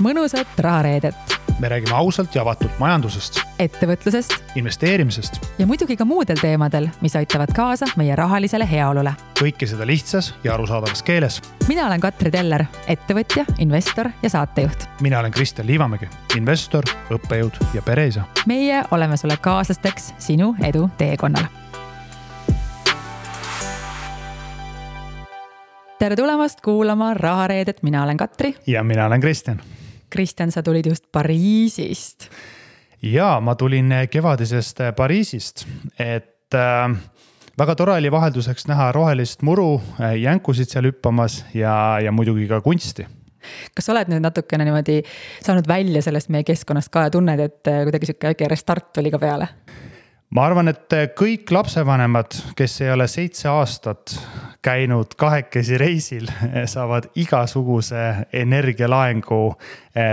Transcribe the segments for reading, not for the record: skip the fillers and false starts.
mõnusat rahareedet. Me räägime ausalt ja avatult majandusest, ettevõtlusest investeerimisest ja muidugi ka muudel teemadel, mis aitavad kaasa meie rahalisele heaolule. Kõike seda lihtsas ja arusaadavas keeles. Mina olen Katri Teller, ettevõtja, investor ja saatejuht. Mina olen Kristjan Liivamägi, investor, õppejõud ja pereisa. Meie oleme sulle kaaslasteks sinu edu teekonnal. Tere tulemast kuulama rahareedet. Mina olen Katri. Ja mina olen Kristjan. Kristjan, sa tulid just Pariisist. Ja ma tulin kevadisest Pariisist, et väga tore oli vahelduseks näha rohelist muru, jänkusid seal hüppamas ja muidugi ka kunsti. Kas sa oled nüüd natukene niimoodi saanud välja sellest meie keskkonnast ka ja tunned, et kuidagi siuke väike restart oli ka peale? Ma arvan, et kõik lapsevanemad, kes ei ole 7 aastat käinud kahekesi reisil, saavad igasuguse energialaengu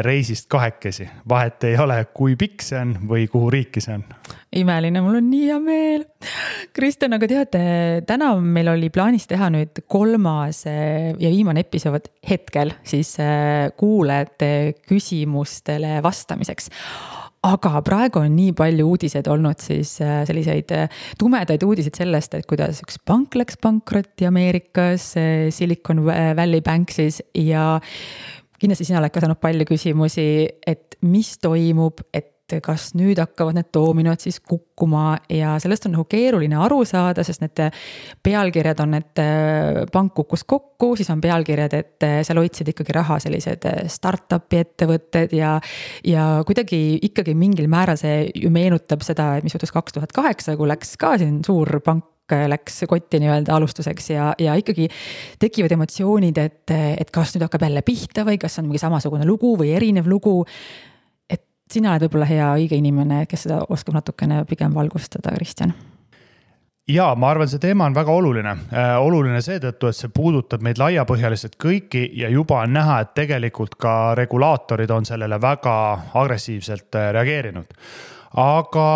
reisist kahekesi. Vahet ei ole, kui pikk see on või kuhu riiki see on. Imeline, mul on nii hea meel. Kristjan, aga teate, täna meil oli plaanis teha nüüd 3. ja viimane episood hetkel siis kuulajate küsimustele vastamiseks. Aga praegu on nii palju uudiseid olnud siis selliseid tumedaid uudiseid sellest, et kuidas üks pank läks pankrotti Ameerikas, Silicon Valley Bank siis, ja kindlasti sina oled ka saanud palju küsimusi, et mis toimub, et kas nüüd hakkavad need doominod siis kukkuma ja sellest on nagu keeruline aru saada, sest need pealkirjad on, et pank kukkus kokku, siis on pealkirjad, et seal hoidsid ikkagi raha sellised startupi ettevõtted ja kuidagi ikkagi mingil määral see ju meenutab seda, mis juhtus 2008, kui läks ka siin suur pank läks kotti nii-öelda alustuseks ja ikkagi tekivad emotsioonid, et kas nüüd hakkab jälle pihta või kas on mingi samasugune lugu või erinev lugu. Sina oled võib-olla hea õige inimene, kes seda oskab natukene pigem valgustada, Kristjan. Ja ma arvan, see teema on väga oluline. Oluline seetõttu, et see puudutab meid laiapõhjaliselt kõiki ja juba on näha, et tegelikult ka regulaatorid on sellele väga agressiivselt reageerinud. Aga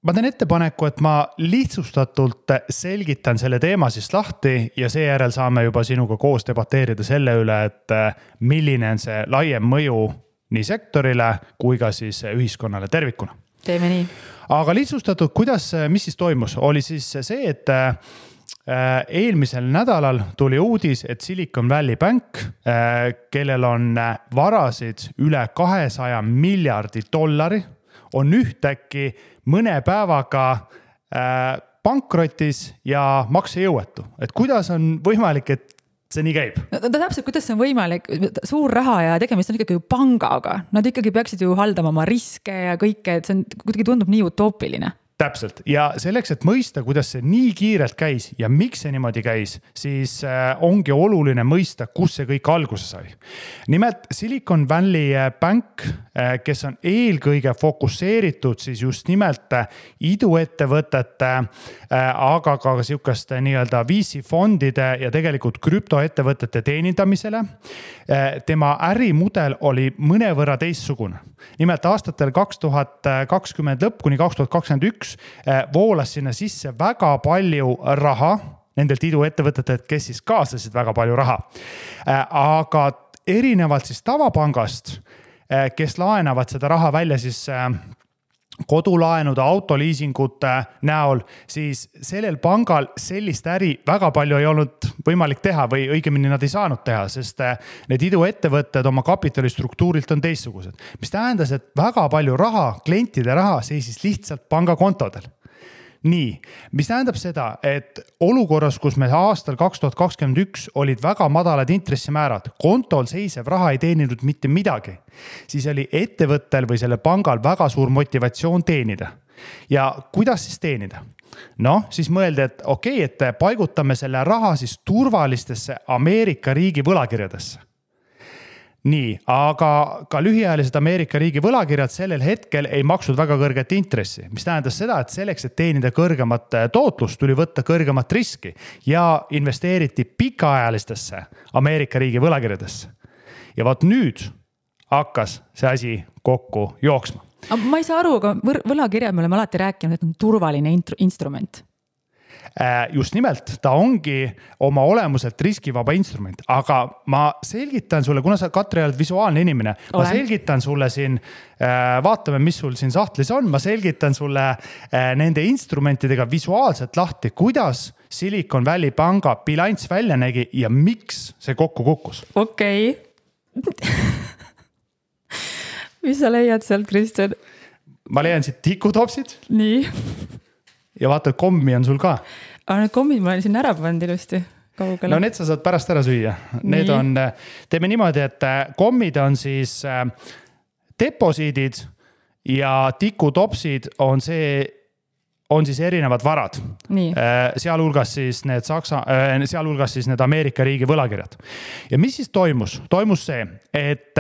ma teen ettepaneku, et ma lihtsustatult selgitan selle teema siis lahti ja seejärel saame juba sinuga koos debateerida selle üle, et milline on see laiem mõju nii sektorile kui ka siis ühiskonnale tervikuna. Teeme nii. Aga lihtsustatud, mis siis toimus? Oli siis see, et eelmisel nädalal tuli uudis, et Silicon Valley Bank, kellel on varasid üle $200 miljardi, on ühtäkki mõne päevaga pankrotis ja maksejõuetu. Et kuidas on võimalik, et see nii käib? No, täpselt, kuidas see on võimalik? Suur raha ja tegemist on ikkagi ju pangaga. Nad ikkagi peaksid ju haldama oma riske ja kõike, et see on, kuidagi tundub nii utoopiline. Täpselt. Ja selleks, et mõista, kuidas see nii kiirelt käis ja miks see niimoodi käis, siis ongi oluline mõista, kus see kõik alguse sai. Nimelt Silicon Valley Bank, kes on eelkõige fokusseeritud siis just nimelt iduettevõtete, aga ka sihukeste nii-öelda VC-fondide ja tegelikult krüptoettevõtete teenindamisele. Tema ärimudel oli mõnevõrra teistsugune. Nimelt aastatel 2020 lõpp kuni 2021 voolas sinna sisse väga palju raha nendelt iduettevõtetelt, kes siis kaasasid väga palju raha. Aga erinevalt siis tavapangast, kes laenavad seda raha välja siis kodulaenude, autoliisingute näol, siis sellel pangal sellist äri väga palju ei olnud võimalik teha või õigemini nad ei saanud teha, sest need iduettevõtted oma kapitalistruktuurilt on teistsugused. Mis tähendas, et väga palju raha, klientide raha seisis lihtsalt pangakontodel. Nii, mis tähendab seda, et olukorras, kus me aastal 2021 olid väga madalad intressimäärad, kontol seisev raha ei teeninud mitte midagi, siis oli ettevõttel või selle pangal väga suur motivatsioon teenida. Ja kuidas siis teenida? Siis mõeldi, et okei, et paigutame selle raha siis turvalistesse Ameerika riigi võlakirjadesse. Nii, aga ka lühiajalised Ameerika riigi võlakirjad sellel hetkel ei maksnud väga kõrget intressi, mis tähendas seda, et selleks, et teenida kõrgemat tootlust, tuli võtta kõrgemat riski ja investeeriti pikaajalistesse Ameerika riigi võlakirjadesse. Ja vaat nüüd hakkas see asi kokku jooksma. Ma ei saa aru, aga võlakirjad me oleme alati rääkinud, et on turvaline instrument. just nimelt, ta ongi oma olemuselt riskivaba instrument, aga ma selgitan sulle, kuna sa, Katri, oled visuaalne inimene, ma selgitan sulle siin, vaatame, mis sul siin sahtlis on, ma selgitan sulle nende instrumentidega visuaalselt lahti, kuidas Silicon Valley panga bilanss välja nägi ja miks see kokku kukkus. Okei. Mis sa leiad sealt, Kristjan? Ma leian siit tikutopsid. Nii. Ja vaata, kommi on sul ka. Aga need kommid ma olen siin ära pannud ilusti kaugele. No need sa saad pärast ära süüa. Need on, teeme niimoodi, et kommid on siis deposiidid ja tikutopsid on siis erinevad varad. Sealhulgas siis need Ameerika riigi võlakirjad. Ja mis siis toimus? Toimus see, et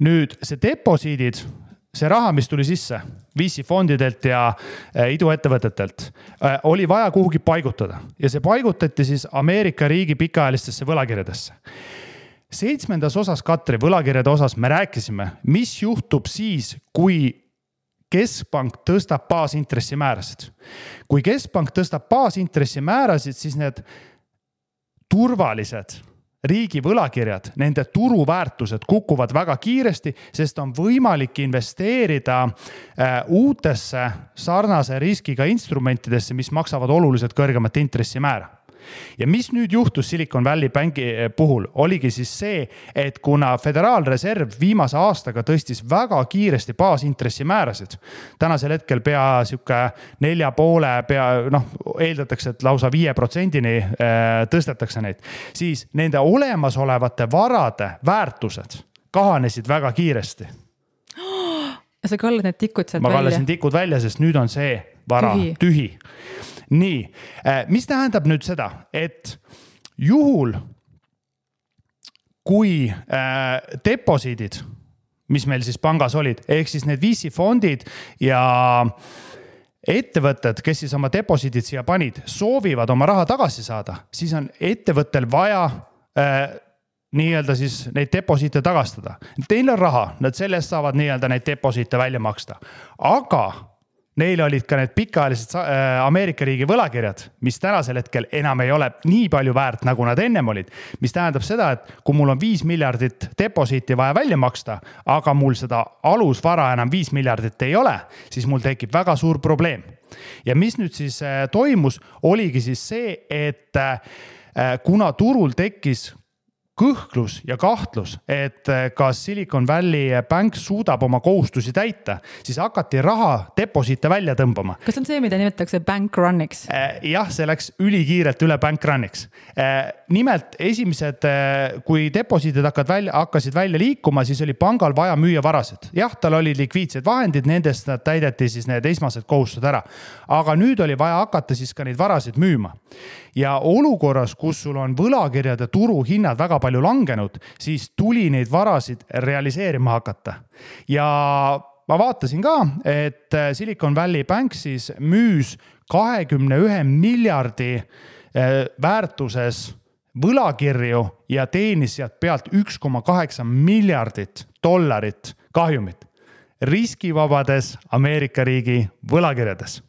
nüüd see deposiidid, see raha, mis tuli sisse VC fondidelt ja iduettevõtetelt, oli vaja kuhugi paigutada. Ja see paigutati siis Ameerika riigi pikaajalistesse võlakirjadesse. 7. osas, Katri, võlakirjade osas me rääkisime, mis juhtub siis, kui keskpank tõstab baasintressimäärasid. Kui keskpank tõstab baasintressimäärasid, siis need turvalised riigi võlakirjad, nende turuväärtused kukuvad väga kiiresti, sest on võimalik investeerida uutesse sarnase riskiga instrumentidesse, mis maksavad oluliselt kõrgemat intressimäära. Ja mis nüüd juhtus Silicon Valley Banki puhul, oligi siis see, et kuna Föderaalreserv viimase aastaga tõstis väga kiiresti baasintressimäärasid, tänasel hetkel pea 4,5, eeldatakse, et lausa 5%-ni tõstetakse neid, siis nende olemasolevate varade väärtused kahanesid väga kiiresti. Sa kallad need tikud sealt välja? Ma kallasin tikud välja, sest nüüd on see vara tühi. Nii, mis tähendab nüüd seda, et juhul, kui deposiidid, mis meil siis pangas olid, ehk siis need VC fondid ja ettevõtted, kes siis oma deposiidid siia panid, soovivad oma raha tagasi saada, siis on ettevõttel vaja nii-öelda siis neid deposiite tagastada. Teil on raha, nad sellest saavad nii-öelda neid deposiite välja maksta, aga neil olid ka need pikaajalised Ameerika riigi võlakirjad, mis tänasel hetkel enam ei ole nii palju väärt, nagu nad ennem olid. Mis tähendab seda, et kui mul on 5 miljardit deposiiti vaja välja maksta, aga mul seda alusvara enam 5 miljardit ei ole, siis mul tekib väga suur probleem. Ja mis nüüd siis toimus, oligi siis see, et kuna turul tekkis kõhklus ja kahtlus, et kas Silicon Valley Bank suudab oma kohustusi täita, siis hakati raha deposiite välja tõmbama. Kas on see, mida nimetatakse bank runniks? Jah, see läks ülikiirelt üle bank runniks. Nimelt esimesed, kui deposiidid hakkasid välja liikuma, siis oli pangal vaja müüa varasid. Jah, tal oli likviidsed vahendid, nendest täideti siis need esmased kohustused ära. Aga nüüd oli vaja hakata siis ka neid varasid müüma. Ja olukorras, kus sul on võlakirjade turuhinnad väga palju langenud, siis tuli neid varasid realiseerima hakata. Ja ma vaatasin ka, et Silicon Valley Bank siis müüs 21 miljardi väärtuses võlakirju ja teenis sealt pealt 1,8 miljardit dollarit kahjumit riskivabades Ameerika riigi võlakirjades.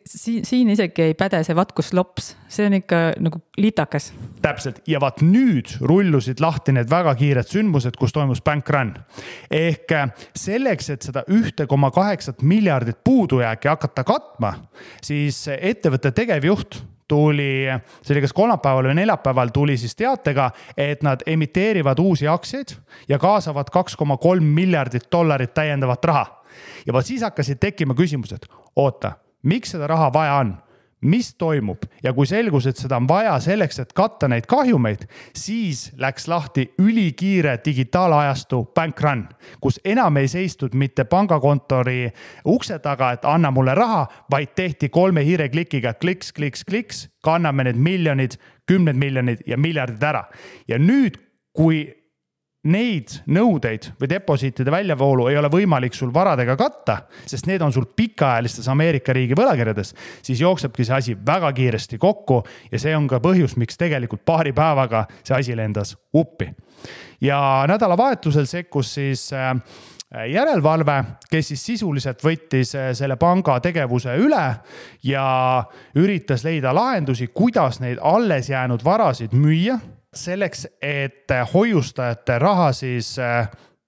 Siin isegi ei päde see vatkuslops, see on ikka nagu litakas. Täpselt, ja vaat nüüd rullusid lahti need väga kiired sündmused, kus toimus bank run. Ehk selleks, et seda 1,8 miljardit puudujääki hakata katma, siis ettevõtte tegevjuht tuli, see oli kas kolmapäeval või neljapäeval tuli siis teatega, et nad emiteerivad uusi aktsiaid ja kaasavad 2,3 miljardit dollarit täiendavat raha. Ja vaat siis hakkasid tekkima küsimused, oota, miks seda raha vaja on? Mis toimub? Ja kui selgus, et seda on vaja selleks, et katta neid kahjumeid, siis läks lahti ülikiire digitaalajastu bank run, kus enam ei seistud mitte pangakontori ukse taga, et anna mulle raha, vaid tehti 3 hiireklikiga kliks, kliks, kliks, kanname need miljonid, 10 miljonid ja miljardid ära. Ja nüüd, kui neid nõudeid või deposiitide väljavoolu ei ole võimalik sul varadega katta, sest need on sul pikaajalistes Ameerika riigi võlakirjades, siis jooksebki see asi väga kiiresti kokku ja see on ka põhjus, miks tegelikult paari päevaga see asi lendas uppi. Ja nädalavahetusel sekkus siis järelevalve, kes siis sisuliselt võttis selle panga tegevuse üle ja üritas leida lahendusi, kuidas neid alles jäänud varasid müüa selleks, et hoiustajate raha siis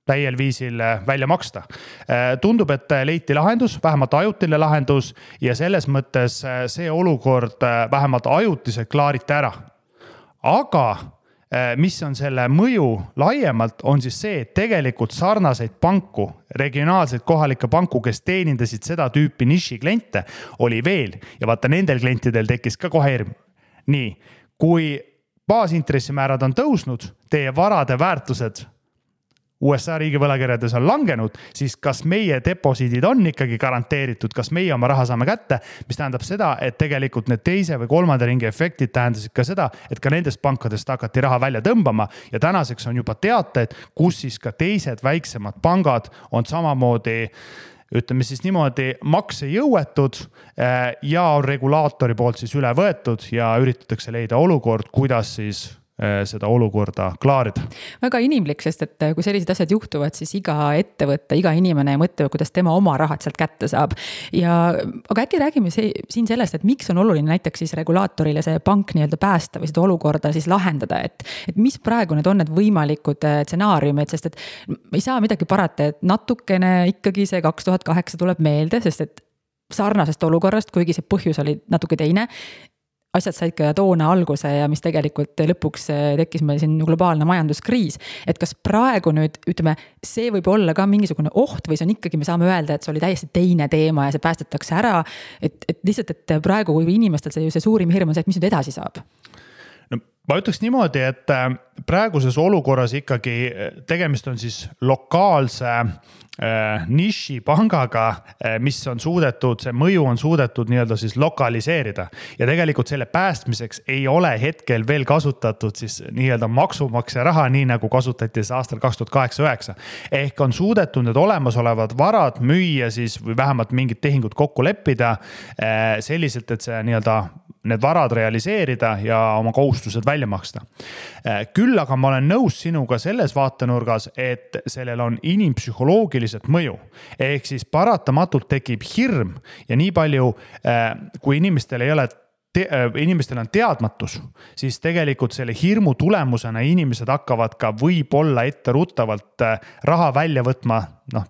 täiel viisil välja maksta. Tundub, et leiti lahendus, vähemalt ajutine lahendus ja selles mõttes see olukord vähemalt ajutiselt klaariti ära. Aga mis on selle mõju laiemalt, on siis see, et tegelikult sarnaseid panku, regionaalseid kohalikke panku, kes teenindasid seda tüüpi niši kliente, oli veel. Ja vaata, nendel klientidel tekkis ka kohe hirm. Nii, kui baasintressimäärad on tõusnud, teie varade väärtused USA riigi võlakirjades on langenud, siis kas meie deposiidid on ikkagi garanteeritud, kas meie oma raha saame kätte, mis tähendab seda, et tegelikult need teise või kolmanda ringi efektid tähendasid ka seda, et ka nendest pankadest hakati raha välja tõmbama ja tänaseks on juba teated, kus siis ka teised väiksemad pangad on samamoodi, ütleme siis niimoodi, maksejõuetud ja on regulaatori poolt siis üle võetud ja üritatakse leida olukord, kuidas siis seda olukorda klaarida. Väga inimlik, sest et kui sellised asjad juhtuvad, siis iga ettevõtte, iga inimene mõtleb, kuidas tema oma rahad sealt kätte saab. Aga äkki räägime siin sellest, et miks on oluline näiteks siis regulaatorile see pank nii-öelda päästa või seda olukorda siis lahendada, et mis praegu need on need võimalikud stsenaariumid, sest et ei saa midagi parata, et natukene ikkagi see 2008 tuleb meelde, sest et sarnasest olukorrast, kuigi see põhjus oli natuke teine, asjad said ka toona alguse ja mis tegelikult lõpuks tekkis meil siin globaalne majanduskriis. Et kas praegu nüüd, ütleme, see võib olla ka mingisugune oht või see on ikkagi, me saame öelda, et see oli täiesti teine teema ja see päästetakse ära. Et lihtsalt, et praegu kui inimestel see suurim hirm on see, et mis nüüd edasi saab? No, ma ütleks niimoodi, et praeguses olukorras ikkagi tegemist on siis lokaalse niši pangaga, mis on suudetud, see mõju on suudetud nii-öelda siis lokaliseerida ja tegelikult selle päästmiseks ei ole hetkel veel kasutatud siis nii-öelda maksumaksja raha, nii nagu kasutati aastal 2008-2009. Ehk on suudetud need olemasolevad varad müüa siis või vähemalt mingid tehingud kokku leppida selliselt, et see nii-öelda need varad realiseerida ja oma kohustused välja maksta. Küll aga ma olen nõus sinuga selles vaatenurgas, et sellel on inimpsühholoogilised mõju. Ehk siis paratamatult tekib hirm ja nii palju, kui inimestel on teadmatus, siis tegelikult selle hirmu tulemusena inimesed hakkavad ka võib-olla etteruttavalt raha välja võtma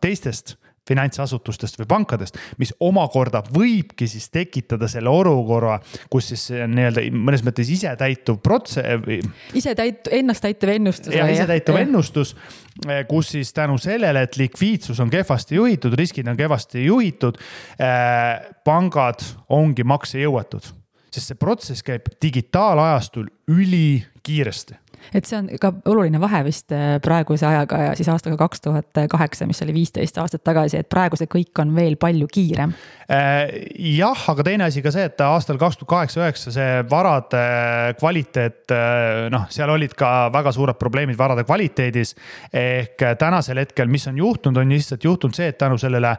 teistest finantsasutustest või pankadest, mis omakorda võibki siis tekitada selle olukorra, kus siis nii-öelda mõnes mõttes isetäituv ennast täituv ennustus. Ja isetäituv ennustus, kus siis tänu sellele, et likviidsus on kehvasti juhitud, riskid on kehvasti juhitud, pangad ongi maksejõuetud. Sest see protsess käib digitaalajastul ülikiiresti. Et see on ka oluline vahe vist praeguse ajaga ja siis aastaga 2008, mis oli 15 aastat tagasi, et praegu see kõik on veel palju kiirem. Jah, aga teine asi ka see, et aastal 2008-2009 see varade kvaliteet, seal olid ka väga suured probleemid varade kvaliteedis. Ehk tänasel hetkel, mis on juhtunud, on lihtsalt juhtunud see, et tänu sellele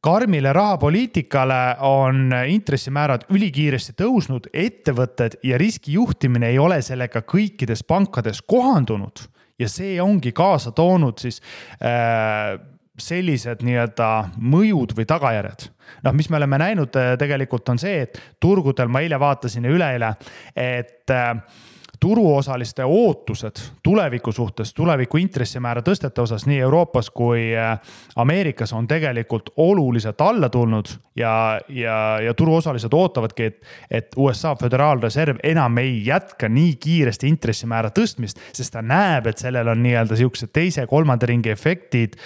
karmile rahapoliitikale on intressimäärad ülikiiresti tõusnud, ettevõtted ja riskijuhtimine ei ole sellega kõikides pankades kohandunud ja see ongi kaasa toonud siis sellised nii-öelda mõjud või tagajärjed. Mis me oleme näinud tegelikult on see, et turgudel ma eile vaatasin ja üleeile, et turuosaliste ootused tuleviku suhtes, tuleviku intressimäära tõstete osas nii Euroopas kui Ameerikas on tegelikult oluliselt alla tulnud ja turuosalised ootavadki, et USA Föderaalreserv enam ei jätka nii kiiresti intressimäära tõstmist, sest ta näeb, et sellel on nii-öelda siuksed teise kolmanda ringi efektid,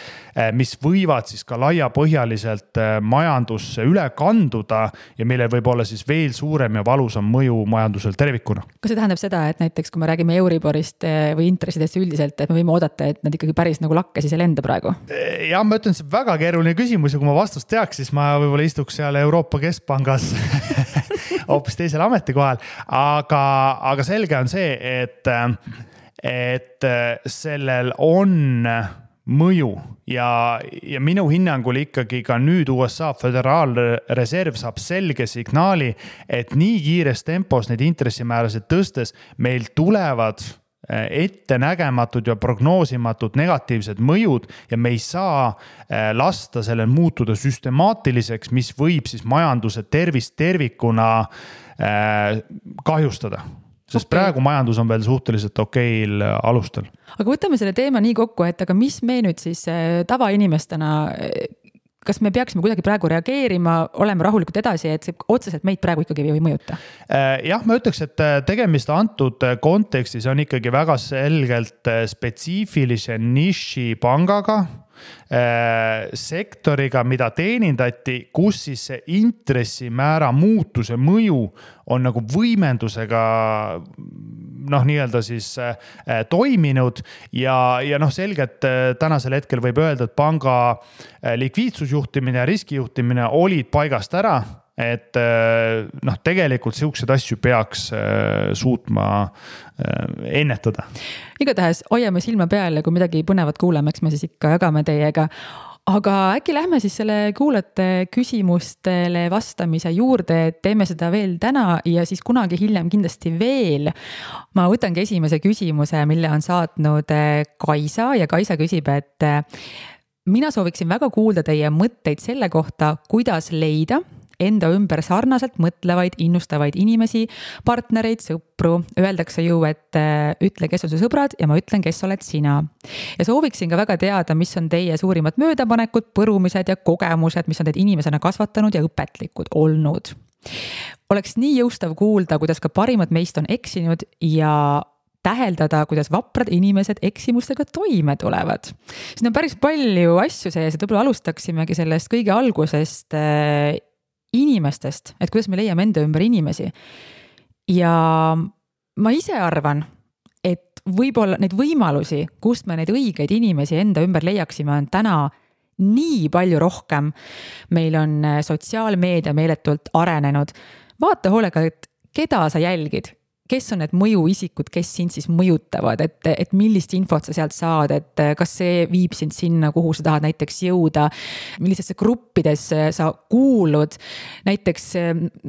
mis võivad siis ka laiapõhjaliselt majandusse üle kanduda ja millel võib olla siis veel suurem ja valusam mõju majandusel tervikuna. Kas see tähendab seda, et näiteks kui me räägime Euriborist või intressidest üldiselt, et me võime oodata, et nad ikkagi päris nagu lakke siis ei lenda praegu? Ja ma ütlen, see väga keeruline küsimus ja kui ma vastust teaks, siis ma võib-olla istuks seal Euroopa Keskpangas hoopis teisel ametikohal. Aga selge on see, et sellel on mõju ja minu hinnangul ikkagi ka nüüd USA Föderaalreserv saab selge signaali, et nii kiires tempos neid intressimäärasid tõstes meil tulevad ettenägematud ja prognoosimatud negatiivsed mõjud ja me ei saa lasta sellel muutuda süstemaatiliseks, mis võib siis majanduse tervist tervikuna kahjustada. Sest praegu majandus on veel suhteliselt okeil alustel. Aga võtame selle teema nii kokku, et aga mis me nüüd siis tavainimestena, kas me peaksime kuidagi praegu reageerima, oleme rahulikult edasi, et see otseselt meid praegu ikkagi ei mõjuta? Jah, ma ütleks, et tegemist antud kontekstis on ikkagi väga selgelt spetsiifilise niši pangaga, sektoriga, mida teenindati, kus siis see intressimäära muutuse mõju on nagu võimendusega nii-öelda siis toiminud ja selgelt tänasel hetkel võib öelda, et panga likviidsusjuhtimine ja riskijuhtimine olid paigast ära, et tegelikult siuksed asju peaks suutma ennetada. Igatahes hoiame silma peal ja kui midagi põnevat kuuleme, eks me siis ikka jagame teiega. Aga äkki lähme siis selle kuulajate küsimustele vastamise juurde, et teeme seda veel täna ja siis kunagi hiljem kindlasti veel. Ma võtangi esimese küsimuse, mille on saatnud Kaisa ja Kaisa küsib, et mina sooviksin väga kuulda teie mõtteid selle kohta, kuidas leida enda ümber sarnaselt mõtlevaid, innustavaid inimesi, partnereid, sõpru. Öeldakse ju, et ütle, kes on su sõbrad ja ma ütlen, kes oled sina. Ja sooviksin ka väga teada, mis on teie suurimad möödapanekud, põrumised ja kogemused, mis on teid inimesena kasvatanud ja õpetlikud olnud. Oleks nii jõustav kuulda, kuidas ka parimad meist on eksinud ja täheldada, kuidas vaprad inimesed eksimustega toime tulevad. Siin on päris palju asju sees, et võib-olla alustaksimegi sellest kõige algusest inimestest, et kuidas me leiame enda ümber inimesi. Ja ma ise arvan, et võib-olla neid võimalusi, kust me neid õigeid inimesi enda ümber leiaksime, on täna nii palju rohkem. Meil on sotsiaalmeedia meeletult arenenud. Vaata hoolega, et keda sa jälgid, kes on need mõjuisikud, kes sind siis mõjutavad, et millist infot sa sealt saad, et kas see viib sind sinna, kuhu sa tahad näiteks jõuda, millistesse gruppidesse sa kuulud. Näiteks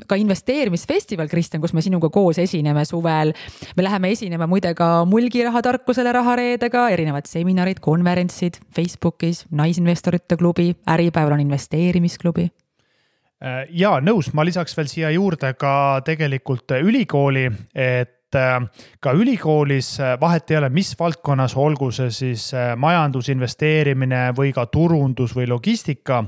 ka investeerimisfestival, Kristjan, kus me sinuga koos esineme suvel. Me läheme esinema muide ka mulgirahatarkusele rahareedega, erinevad seminarid, konverentsid Facebookis, naisinvestorite klubi, Äripäeval on investeerimisklubi. Ja nõus, ma lisaks veel siia juurde ka tegelikult ülikooli, et ka ülikoolis vahet ei ole, mis valdkonnas, olgu see siis majandus, investeerimine või ka turundus või logistika,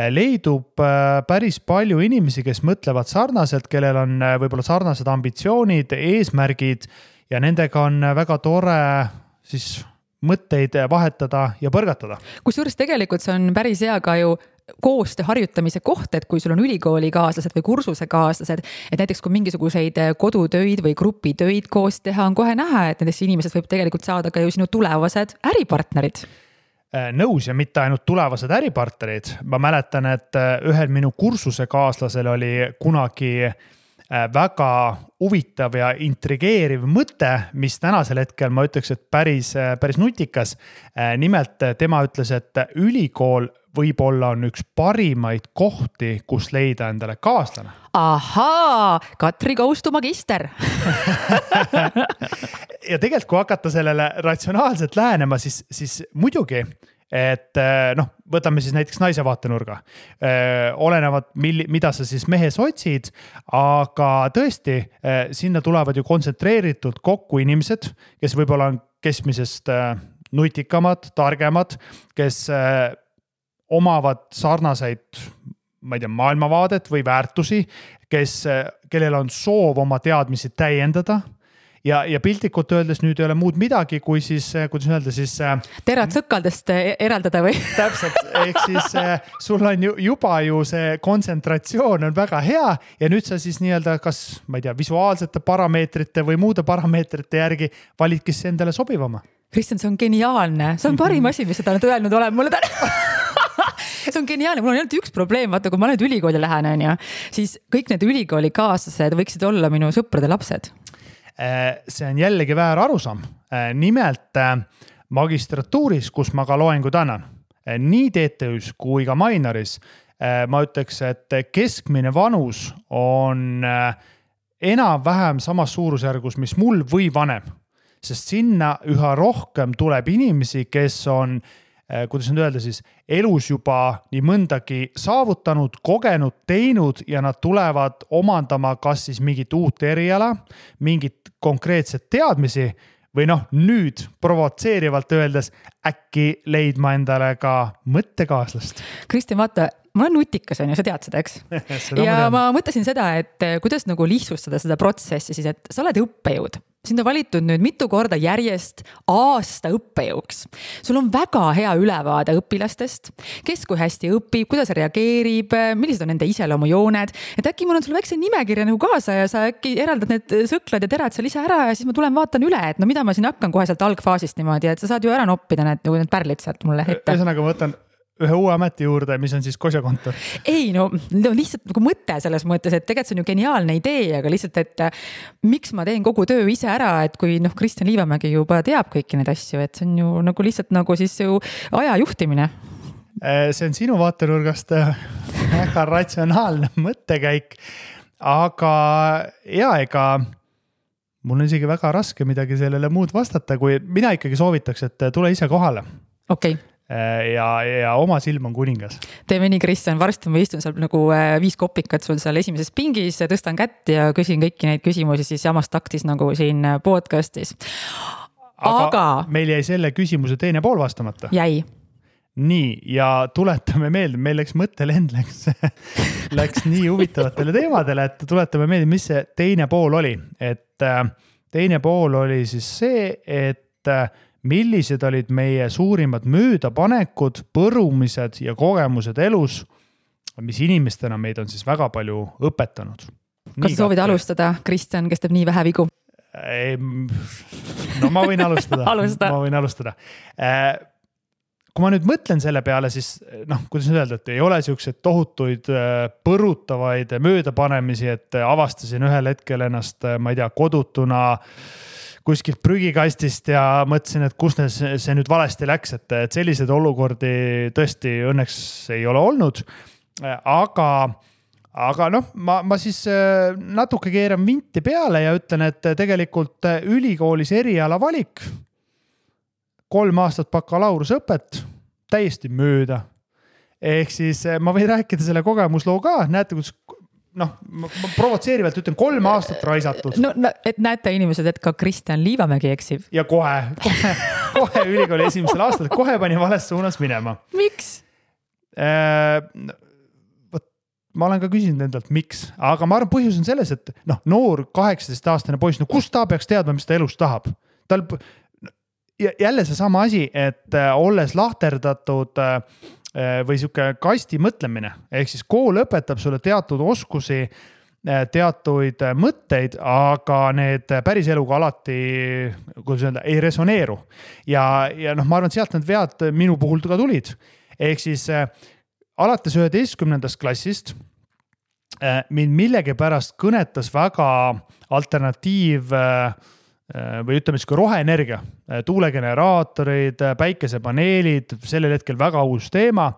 leidub päris palju inimesi, kes mõtlevad sarnaselt, kellel on võib-olla sarnased ambitsioonid, eesmärgid ja nendega on väga tore siis mõtteid vahetada ja põrgatada. Kusjuures tegelikult see on päris hea ka ju koostöö harjutamise koht, et kui sul on ülikooli kaaslased või kursuse kaaslased, et näiteks kui mingisuguseid kodutöid või grupitöid koos teha, on kohe näha, et nendest inimesest võib tegelikult saada ka ju sinu tulevased äripartnerid. Nõus ja mitte ainult tulevased äripartnerid. Ma mäletan, et ühel minu kursuse kaaslasel oli kunagi väga huvitav ja intrigeeriv mõte, mis tänasel hetkel ma ütleks, et päris nutikas. Nimelt tema ütles, et ülikool võib-olla on üks parimaid kohti, kus leida endale kaaslane. Ahaa, Katri Koustu magister. Ja tegelikult, kui hakata sellele ratsionaalselt lähenema, siis muidugi, et võtame siis näiteks naise vaatenurga. Olenevad, mida sa siis mehes otsid, aga tõesti, sinna tulevad ju kontsentreeritud kokku inimesed, kes võib-olla on keskmisest nutikamad, targemad, kes omavad sarnaseid, ma ei tea, maailmavaadet või väärtusi, kellel on soov oma teadmisi täiendada ja piltlikult öeldes nüüd ei ole muud midagi, kui siis, kuidas öelda, siis terad sõkaldest eraldada või? Täpselt, ehk siis sul on juba ju see kontsentratsioon on väga hea ja nüüd sa siis nii-öelda kas, ma ei tea, visuaalsete parameetrite või muude parameetrite järgi validki see endale sobivama. Kristjan, see on geniaalne. See on parim asi, mis seda nüüd öelnud olen mulle täna. See on geniaalne, mul on ainult üks probleem, vaata, kui ma nüüd ülikooli lähen, siis kõik need ülikooli kaaslased võiksid olla minu sõprade lapsed. See on jällegi väär arusaam. Nimelt magistratuuris, kus ma ka loengud annan, nii TTÜs kui ka Mainoris, ma ütleks, et keskmine vanus on enam-vähem samas suurusjärgus, mis mul või vanem. sest sinna üha rohkem tuleb inimesi, kes on, kuidas nüüd öelda siis, elus juba nii mõndagi saavutanud, kogenud, teinud ja nad tulevad omandama kas siis mingit uut eriala, mingit konkreetset teadmisi või nüüd provotseerivalt öeldes äkki leidma endale ka mõttekaaslast. Kristjan, vaata, ma olen nutikas, on ju, sa tead seda, eks? Ja ma mõtlesin seda, et kuidas nagu lihtsustada seda protsessi siis, et sa oled õppejõud. Sind on valitud nüüd mitu korda järjest aasta õppejõuks. Sul on väga hea ülevaade õpilastest, kes kui hästi õpib, kuidas reageerib, millised on nende iseloomujooned. Et äkki mul on sul väikse nimekirja nagu kaasa ja sa äkki eraldad need sõklad ja terad seal ise ära ja siis ma tulen vaatan üle, et mida ma siin hakkan kohe sealt algfaasist niimoodi, et sa saad ju ära noppida need pärlid sealt mulle ette. Ühesõnaga ma võtan ühe uue ameti juurde, mis on siis Kosja kontor. Ei, lihtsalt nagu mõte selles mõttes, et tegelikult see on ju geniaalne idee, aga lihtsalt, et miks ma teen kogu töö ise ära, et kui Kristjan Liivamägi juba teab kõiki neid asju, et see on ju nagu lihtsalt nagu siis ju aja juhtimine. See on sinu vaatenurgast väga ratsionaalne mõttekäik, aga ega mul on isegi väga raske midagi sellele muud vastata, kui mina ikkagi soovitaks, et tule ise kohale. Okei. Ja oma silm on kuningas. Teeme nii, Kristjan, varsti ma istun seal nagu 5 kopikat sul seal esimeses pingis, tõstan kätt ja küsin kõiki neid küsimusi siis samas taktis nagu siin podcastis. Aga meil jäi selle küsimuse teine pool vastamata. Jäi. Nii, ja tuletame meelde, meil läks mõttelend läks nii huvitavatele teemadele, et tuletame meelde, mis see teine pool oli. Et teine pool oli siis see, et millised olid meie suurimad möödapanekud, põrumised ja kogemused elus, mis inimestena meid on siis väga palju õpetanud. Kas sa soovid alustada, Kristjan, kes teeb nii vähe vigu? No ma võin alustada. Ma võin alustada. Kui ma nüüd mõtlen selle peale, siis kuidas nüüd öelda, et ei ole sellised tohutuid põrutavaid möödapanemisi, et avastasin ühel hetkel ennast, ma ei tea, kodutuna kuskilt prügikastist ja mõtlesin, et kus see nüüd valesti läks, et sellised olukordi tõesti õnneks ei ole olnud. Aga ma siis natuke keeran vinti peale ja ütlen, et tegelikult ülikoolis eriala valik, 3 aastat bakalaurusõpet, täiesti mööda. Ehk siis ma võin rääkida selle kogemusloo ka, näete, kus ma provotseerivalt ütlen 3 aastat raisatud. Et näete inimesed, et ka Kristjan Liivamägi eksib. Ja kohe ülikooli esimesel aastal, kohe pani vales suunas minema. Miks? Ma olen ka küsinud endalt, miks, aga ma arvan, põhjus on selles, et noor 18-aastane poiss, kus ta peaks teadma, mis ta elus tahab? Jälle see sama asi, et olles lahterdatud või siuke kasti mõtlemine, ehk siis kool õpetab sulle teatud oskusi, teatuid mõtteid, aga need päris eluga alati, kuidas öelda, ei resoneeru. Ja ma arvan, et sealt need vead minu puhul ka tulid. Ehk siis alates 11. klassist mind millegipärast kõnetas väga alternatiiv või ütleme siis roheenergia, tuulegeneraatorid, päikesepaneelid, sellel hetkel väga uus teema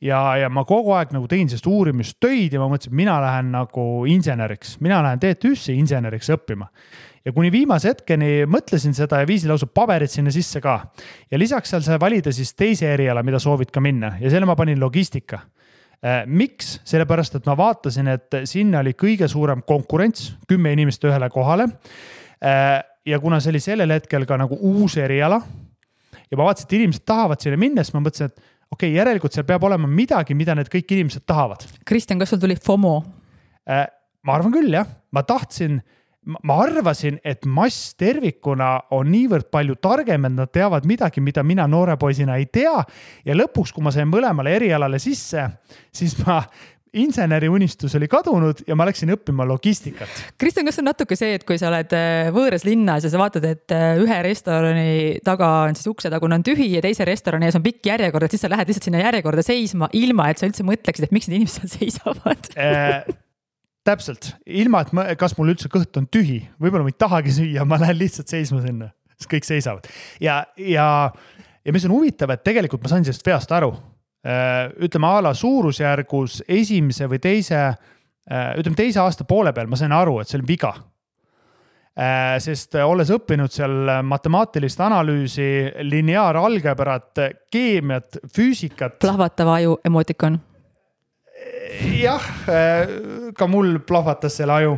ja ma kogu aeg nagu tegin sellest uurimistöid ja ma mõtlesin, et mina lähen nagu inseneriks, mina lähen TTÜ-sse inseneriks õppima. Ja kuni viimase hetkeni mõtlesin seda ja viisin lausa paberid sinna sisse ka. Ja lisaks seal sai valida siis teise eriala, mida soovid ka minna ja selle ma panin logistika. Miks? Sellepärast, et ma vaatasin, et sinna oli kõige suurem konkurents, 10 inimest ühele kohale. Ja kuna see oli sellel hetkel ka nagu uus eriala ja ma vaatasin, et inimesed tahavad sinna minna, siis ma mõtlesin, et okei, järelikult seal peab olema midagi, mida need kõik inimesed tahavad. Kristjan, kas sul tuli FOMO? Ma arvan küll, jah. Ma arvasin, et mass tervikuna on niivõrd palju targem, et nad teavad midagi, mida mina noore poisina ei tea. Ja lõpuks, kui ma sain mõlemale erialale sisse, siis inseneri unistus oli kadunud ja ma läksin õppima logistikat. Kristjan, kas on natuke see, et kui sa oled võõras linnas ja sa vaatad, et ühe restorani taga on siis uksetagune on tühi ja teise restorani ees on pikk järjekord, et siis sa lähed lihtsalt sinna järjekorda seisma ilma, et sa üldse mõtleksid, et miks need inimesed seal seisavad? Täpselt. Ilma, et kas mul üldse kõht on tühi. Võib-olla ma ei tahagi süüa, ma lähen lihtsalt seisma sinna. Siis kõik seisavad. Ja mis on huvitav, et tegelikult ma sain sellest veast aru. Ütleme ala suurusjärgus esimese või teise aasta poole peal ma sain aru, et see oli viga. sest olles õppinud seal matemaatilist analüüsi, lineaaralgebrat, keemiat, füüsikat. Plahvatav aju emotikon. Jah, ka mul plahvatas selle aju.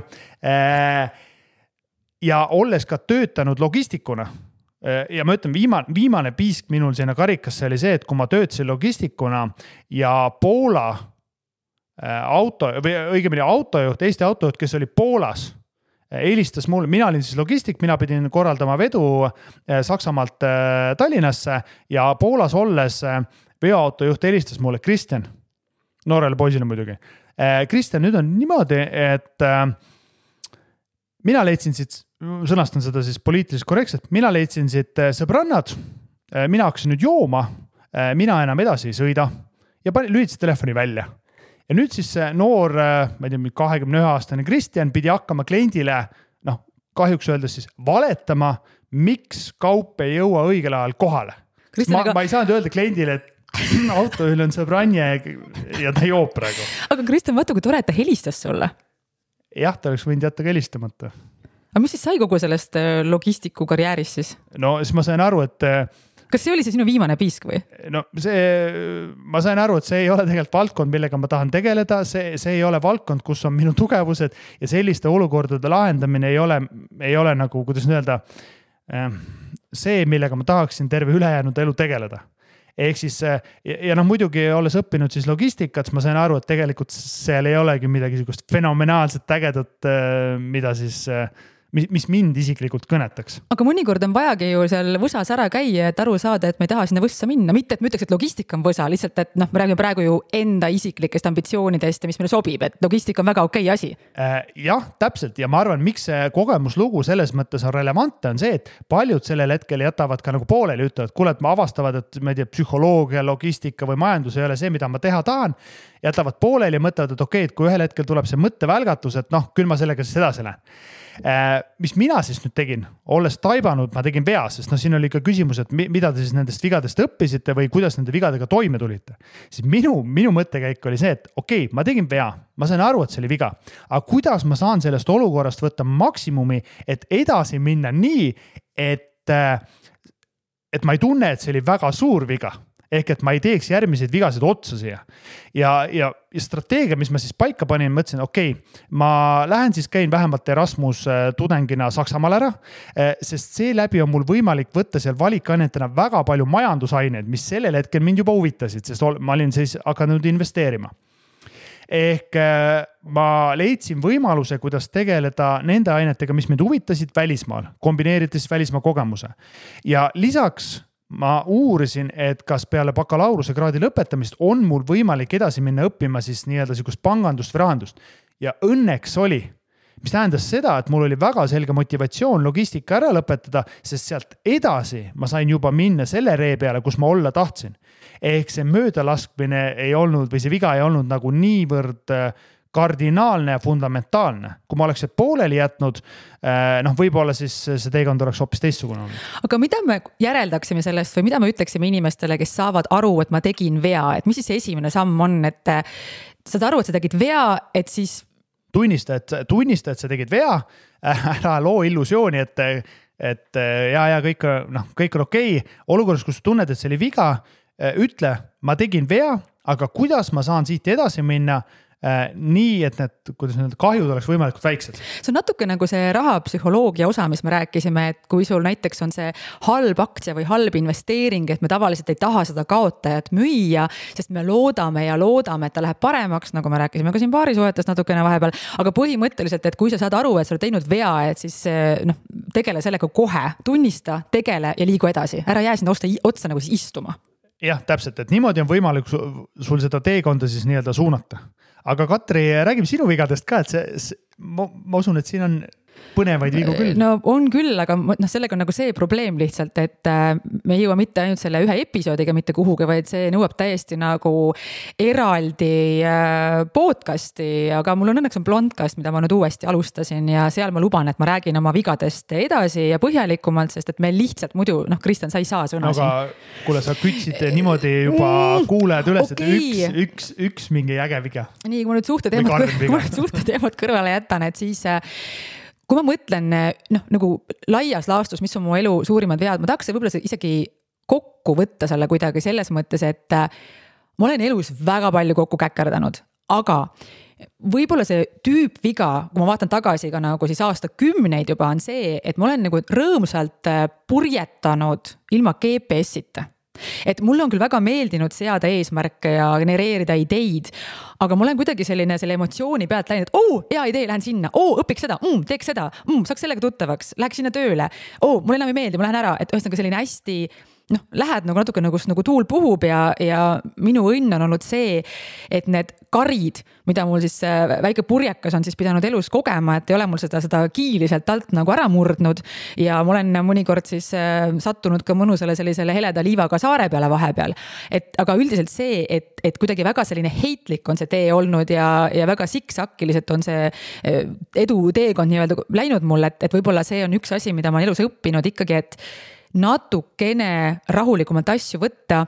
Ja olles ka töötanud logistikuna ja ma ütlen, viimane piisk minul sinna karikasse oli see, et kui ma töötasin logistikuna ja Poola autojuht, Eesti autojuht, kes oli Poolas, helistas mulle, mina olin siis logistik, mina pidin korraldama vedu Saksamaalt Tallinnasse ja Poolas olles veoautojuht helistas mulle, Kristjan, noorele poisile muidugi. Kristjan, nüüd on niimoodi, et mina leidsin siit, sõnastan seda siis poliitiliselt korrektselt, mina leidsin siit sõbrannad, mina hakkasin nüüd jooma, mina enam edasi ei sõida ja lülitasin telefoni välja. Ja nüüd siis see noor, ma ei tea, 21-aastane Kristjan pidi hakkama kliendile, kahjuks öeldes siis valetama, miks kaup ei jõua õigel ajal kohale. Ma ei saanud öelda kliendile, et autojuhil on sõbranje ja ta joob praegu. Aga Kristjan, vaata, kui tore, et ta helistas sulle. Jah, ta oleks võinud jätta ka helistamata. Aga mis siis sai kogu sellest logistiku karjäärist siis? No siis ma sain aru, et kas see oli see sinu viimane piisk või? No ma sain aru, et see ei ole tegelikult valdkond, millega ma tahan tegeleda, see ei ole valdkond, kus on minu tugevused ja selliste olukordade lahendamine ei ole nagu, kuidas öelda, see, millega ma tahaksin terve ülejäänud elu tegeleda. Ehk siis, ja muidugi olles õppinud siis logistikat, ma sain aru, et tegelikult seal ei olegi midagi fenomenaalset ägedat, mida siis mis mind isiklikult kõnetaks. Aga mõnikord on vajagi ju seal võsas ära käia, et aru saada, et me ei taha sinna võssa minna. Mitte, et me ütleks, et logistika on võsa, lihtsalt, et me räägime praegu ju enda isiklikest ambitsioonidest ja mis meile sobib, et logistika on väga okei asi. Jah, täpselt. Ja ma arvan, miks see kogemuslugu selles mõttes on relevantne, on see, et paljud sellel hetkel jätavad ka nagu pooleli, ütlevad, kuule, et ma avastavad, et ma ei tea, psühholoogia, logistika või majandus ei ole see, mida ma teha tahan, jätavad pooleli ja mõtlevad, et okei, et kui ühel hetkel tuleb see mõttevälgatus, et küll ma sellega siis edasi lähen. Mis mina siis nüüd tegin, olles taibanud, ma tegin vea, sest siin oli ka küsimus, et mida te siis nendest vigadest õppisite või kuidas nende vigadega toime tulite. Siis minu mõttekäik oli see, et okei, ma tegin vea, ma sain aru, et see oli viga, aga kuidas ma saan sellest olukorrast võtta maksimumi, et edasi minna nii, et ma ei tunne, et see oli väga suur viga. Ehk et ma ei teeks järgmiseid vigasid otsa siia. Ja strateegia, mis ma siis paika panin, mõtlesin, okei, ma lähen siis käin vähemalt Erasmus tudengina Saksamaal ära, sest seeläbi on mul võimalik võtta seal valikainetena väga palju majandusaineid, mis sellel hetkel mind juba huvitasid, sest ma olin siis hakanud investeerima. Ehk ma leidsin võimaluse, kuidas tegeleda nende ainetega, mis mind huvitasid välismaal, kombineerides välismaa kogemuse. Ja lisaks ma uurisin, et kas peale bakalaureuse kraadi lõpetamist on mul võimalik edasi minna õppima siis nii-öelda sihukest pangandust või rahandust. Ja õnneks oli, mis tähendas seda, et mul oli väga selge motivatsioon logistika ära lõpetada, sest sealt edasi ma sain juba minna selle ree peale, kus ma olla tahtsin. Ehk see möödalaskmine ei olnud või see viga ei olnud nagu niivõrd kardinaalne ja fundamentaalne. Kui ma oleks pooleli jätnud, võib-olla siis see teekond oleks hoopis teistsugune. Aga mida me järeldaksime sellest või mida me ütleksime inimestele, kes saavad aru, et ma tegin vea, et mis siis see esimene samm on, et saad aru, et sa tegid vea, et siis tunnista, et sa tegid vea, ära loo illusiooni, et kõik on okei. Olukorras, kus tunned, et see oli viga, ütle, ma tegin vea, aga kuidas ma saan siit edasi minna nii, et need kahjud oleks võimalikult väiksed. See on natuke nagu see rahapsühholoogia osa, mis me rääkisime, et kui sul näiteks on see halb aktsia või halb investeering, et me tavaliselt ei taha seda kaotajat müüa, sest me loodame, et ta läheb paremaks, nagu me rääkisime ka siin paarisuhetes natukene vahepeal, aga põhimõtteliselt, et kui sa saad aru, et sa oled teinud vea, et siis tegele sellega kohe, tunnista, tegele ja liigu edasi, ära jää sinna otsa nagu siis istuma. Jah, täpselt, et niimoodi on võimalik sul seda teekonda siis nii-öelda suunata. Aga Katri, räägime sinu vigadest ka, et ma usun, et siin on põnevaid vigu küll. No on küll, aga sellega on nagu see probleem lihtsalt, et me ei jõua mitte ainult selle ühe episoodiga mitte kuhugi, vaid see nõuab täiesti nagu eraldi podcasti, aga mul on õnneks blondcast, mida ma nüüd uuesti alustasin ja seal ma luban, et ma räägin oma vigadest edasi ja põhjalikumalt, sest et me lihtsalt muidu, Kristjan, sa ei saa sõna siin. Aga kuule, sa kütsid niimoodi juba kuulajad üles, et üks mingi äge viga. Nii, kui ma nüüd suhteteemad kõrvale jätan, et siis kui ma mõtlen nagu laias laastus, mis on mu elu suurimad vead, ma tahaks võib-olla isegi kokku võtta selle kuidagi selles mõttes, et ma olen elus väga palju kokku käkerdanud, aga võib-olla see tüüpviga, kui ma vaatan tagasi ka nagu siis aastakümneid juba on see, et ma olen nagu rõõmsalt purjetanud ilma GPS-ita. Et mulle on küll väga meeldinud seada eesmärke ja genereerida ideid, aga ma olen kuidagi selle emotsiooni pealt läinud, et hea idee, lähen sinna, õpiks seda, teeks seda, saaks sellega tuttavaks, läheks sinna tööle, mulle enam ei meeldi, ma lähen ära, et ühesõnaga selline hästi lähed nagu natuke nagu tuul puhub ja minu õnn on olnud see, et need karid, mida mul siis väike purjekas on siis pidanud elus kogema, et ei ole mul seda kiili sealt alt nagu ära murdnud ja ma olen mõnikord siis sattunud ka mõnusale sellisele heleda liivaga saare peale vahepeal. Aga üldiselt see, et kuidagi väga selline heitlik on see tee olnud ja väga siksakiliselt on see edu teekond nii-öelda läinud mul, et võib-olla see on üks asi, mida ma elus õppinud ikkagi, et natukene rahulikumalt asju võtta,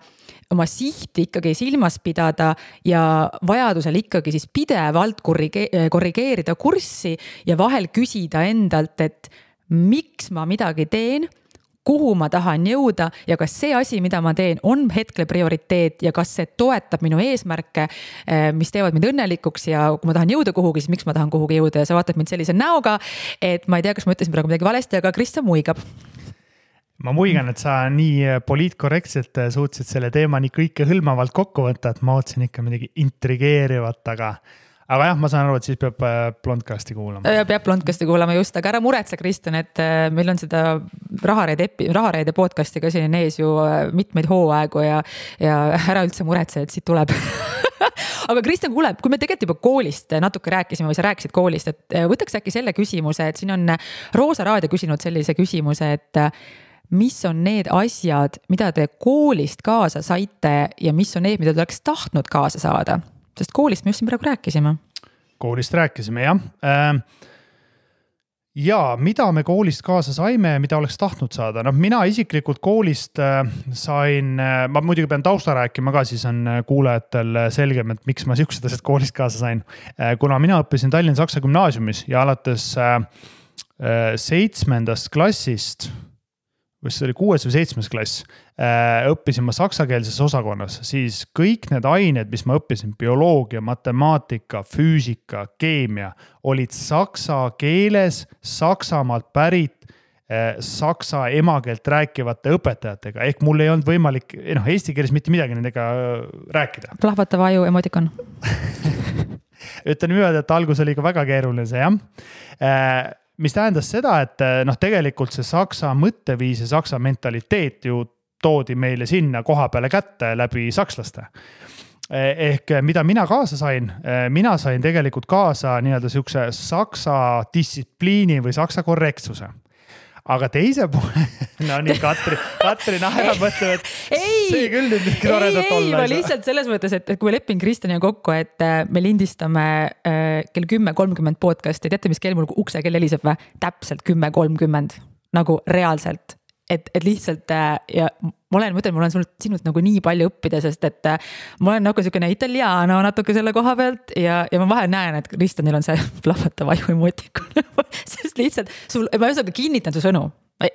oma sihti ikkagi silmas pidada ja vajadusel ikkagi siis pidevalt korrigeerida kurssi ja vahel küsida endalt, et miks ma midagi teen, kuhu ma tahan jõuda ja kas see asi, mida ma teen, on hetkel prioriteet ja kas see toetab minu eesmärke, mis teevad mind õnnelikuks ja kui ma tahan jõuda kuhugi, siis miks ma tahan kuhugi jõuda ja sa vaatad mind sellise näoga, et ma ei tea, kas ma ütlesin praegu midagi valesti, aga Kristjan muigab. Ma muigan, et sa nii poliitkorrektselt suutsid selle teema nii kõike hõlmavalt kokku võtta, et ma ootsin ikka midagi intrigeerivat, aga jah, ma saan aru, et siis peab Blondcasti kuulama. Peab Blondcasti kuulama just, aga ära muretse, Kristjan, et meil on seda Rahareide podcasti ka siin ees ju mitmeid hooaegu ja ära üldse muretse, et siit tuleb. Aga Kristjan, kuule, kui me tegelikult juba koolist natuke rääkisime või sa rääkisid koolist, et võtaks äkki selle küsimuse, et siin on Roosa Raadio küsinud sellise küsimuse, et mis on need asjad, mida te koolist kaasa saite ja mis on need, mida te oleks tahtnud kaasa saada? Sest koolist me just siin praegu rääkisime. Koolist rääkisime, jah. Ja mida me koolist kaasa saime ja mida oleks tahtnud saada? Mina isiklikult koolist sain, ma muidugi pean tausta rääkima ka, siis on kuulajatel selgem, et miks ma siuksed asjad koolist kaasa sain. Kuna mina õppisin Tallinna Saksa Gümnaasiumis ja alates 7. klassist, või see oli 6. või 7. klass, õppisin ma saksakeelses osakonnas, siis kõik need ained, mis ma õppisin, bioloogia, matemaatika, füüsika, keemia, olid saksa keeles, Saksamaalt pärit, saksa emakeelt rääkivate õpetajatega, ehk mul ei olnud võimalik eesti keeles mitte midagi nendega rääkida. Plahvatava aju emotikon. Ütlen niimoodi, et algus oli ka väga keeruline see, jah. Mis tähendas seda, et tegelikult see saksa mõtteviis ja saksa mentaliteet ju toodi meile sinna koha peale kätte läbi sakslaste. Ehk mida mina kaasa sain? Mina sain tegelikult kaasa nii-öelda siukse saksa distsipliini või saksa korrektsuse. Aga teise poole, nii Katri naerab mõtleb, et see küll nüüd toredat olla. Ei, ma lihtsalt selles mõttes, et kui me lepin Kristjaniga kokku, et me lindistame kell 10.30 podcasti, teate, mis kell mul ukse kell heliseb või? Täpselt 10.30, nagu reaalselt. Et lihtsalt ja ma olen sinult nagu nii palju õppida, sest et ma olen nagu selline italiano natuke selle koha pealt ja ma vahel näen, et Kristjanil on see plahvatav aju emotikon. Sest lihtsalt, ma just kinnitan su sõnu.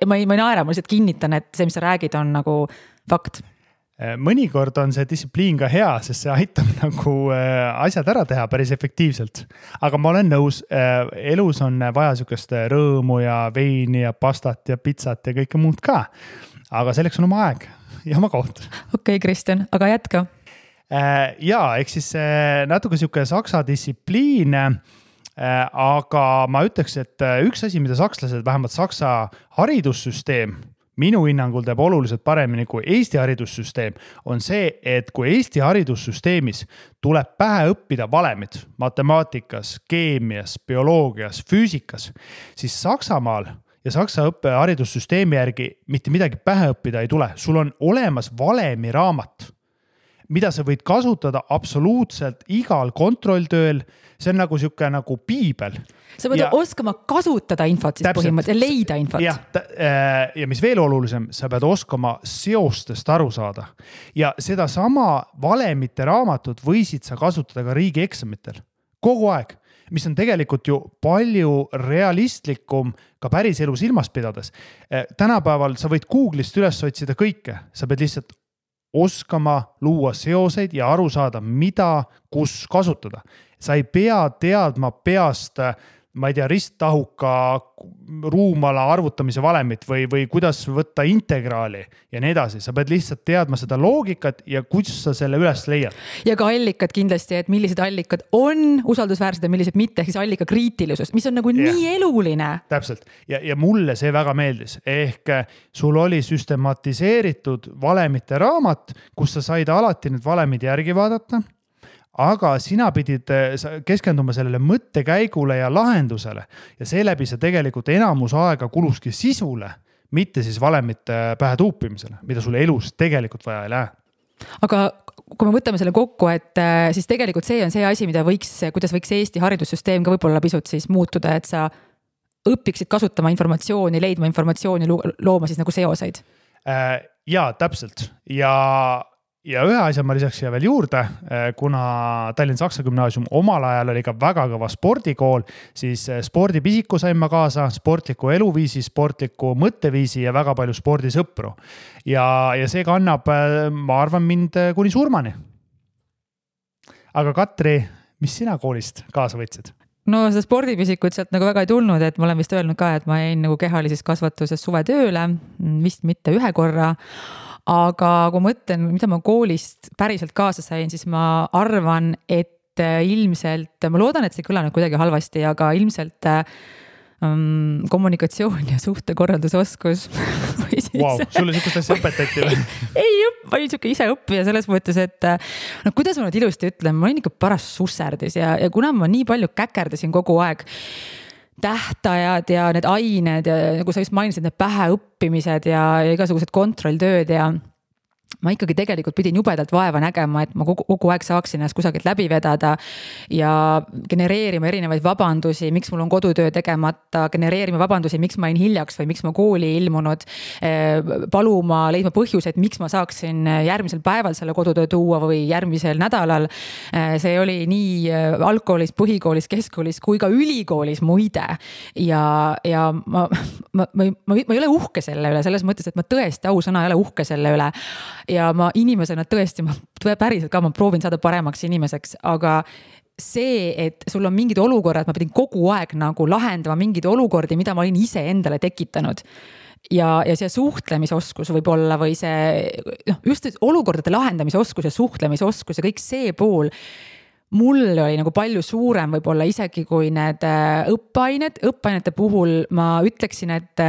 Ma ei naera, ma lihtsalt kinnitan, et see, mis sa räägid, on nagu fakt. Mõnikord on see distsipliin ka hea, sest see aitab nagu asjad ära teha päris efektiivselt. Aga ma olen nõus, elus on vaja sükest rõõmu ja veini ja pastat ja pizzat ja kõike muud ka. Aga selleks on oma aeg ja oma koht. Okei, Kristjan, aga jätka. Jaa, eks siis natuke siuke saksa distsipliin, aga ma ütleks, et üks asi, mida sakslased, vähemalt saksa haridussüsteem, minu hinnangul teeb oluliselt paremini kui Eesti haridussüsteem, on see, et kui Eesti haridussüsteemis tuleb pähe õppida valemid matemaatikas, keemias, bioloogias, füüsikas, siis Saksamaal ja Saksa haridussüsteemi järgi mitte midagi pähe õppida ei tule. Sul on olemas valemi raamat, mida sa võid kasutada absoluutselt igal kontrolltööl. See on nagu siuke nagu piibel. Sa võid oskama kasutada infot siis põhimõtteliselt, leida infot. Ja mis veel olulisem, sa pead oskama seostest aru saada. Ja seda sama valemite raamatut võisid sa kasutada ka riigieksamitel. Kogu aeg. mis on tegelikult ju palju realistlikum ka päris elu silmas pidades. Tänapäeval sa võid Google'ist üles otsida kõike, sa pead lihtsalt oskama luua seoseid ja aru saada, mida, kus kasutada. Sa ei pea teadma peast, ma ei tea, risttahuka ruumala arvutamise valemit või kuidas võtta integraali ja nii edasi. Sa pead lihtsalt teadma seda loogikat ja kuidas sa selle üles leiad. Ja ka allikad kindlasti, et millised allikad on usaldusväärsed ja millised mitte, ehk siis allika kriitilisus, mis on nagu nii eluline. Täpselt. Ja mulle see väga meeldis. Ehk sul oli süstematiseeritud valemite raamat, kus sa said alati need valemid järgi vaadata. Aga sina pidid keskenduma sellele mõttekäigule ja lahendusele ja seeläbi see tegelikult enamus aega kuluski sisule, mitte siis valemite pähe tuupimisele, mida sulle elus tegelikult vaja ei lähe. Aga kui me võtame selle kokku, et siis tegelikult see on see asi, kuidas võiks Eesti haridussüsteem ka võib-olla pisut siis muutuda, et sa õpiksid kasutama informatsiooni, leidma informatsiooni, looma siis nagu seoseid? Jaa, täpselt. Ja ühe asja ma lisaks siia veel juurde, kuna Tallinna Saksa Gümnaasium omal ajal oli ka väga kõva spordikool, siis spordipisiku sain ma kaasa, sportliku eluviisi, sportliku mõtteviisi ja väga palju spordisõpru. Ja see kannab, ma arvan, mind kuni surmani. Aga Katri, mis sina koolist kaasa võtsid? No seda spordipisikut sealt nagu väga ei tulnud, et ma olen vist öelnud ka, et ma jäin nagu kehalises kasvatuses suvetööle, vist mitte ühe korra. Aga kui mõtlen, mida ma koolist päriselt kaasa sain, siis ma arvan, et ilmselt, ma loodan, et see kõlanud kuidagi halvasti, aga ilmselt kommunikatsioon ja suhtekorraldusoskus. Wow, sulle sükust asja õpetati või? Ei, ma olin siuke ise õppija selles mõttes, et no kuidas ma nüüd ilusti ütlen, ma olin ikka paras susserdis ja kuna ma nii palju käkerdasin kogu aeg, tähtajad ja need ained ja nagu sa just mainisid, need pähe õppimised ja igasugused kontrolltööd ja ma ikkagi tegelikult pidin jubedalt vaeva nägema, et ma kogu aeg saaksin ennast kusagilt läbi vedada ja genereerima erinevaid vabandusi, miks mul on kodutöö tegemata, genereerima vabandusi, miks ma olin hiljaks või miks ma kooli ilmunud, paluma, leidma põhjused, miks ma saaksin järgmisel päeval selle kodutöö tuua või järgmisel nädalal. See oli nii algkoolis, põhikoolis, keskkoolis kui ka ülikoolis muide. Ja ma ei ole uhke selle üle, selles mõttes, et ma tõesti ausõna ei ole uhke selle üle. Ja ma inimesena tõesti, päriselt ka ma proovin saada paremaks inimeseks, aga see, et sul on mingid olukorrad, ma pidin kogu aeg nagu lahendama mingid olukordi, mida ma olin ise endale tekitanud. Ja see suhtlemisoskus võib olla või see, just olukordade lahendamise oskus ja suhtlemisoskus ja kõik see pool, mul oli nagu palju suurem võib-olla isegi kui need õppeainete puhul ma ütleksin, et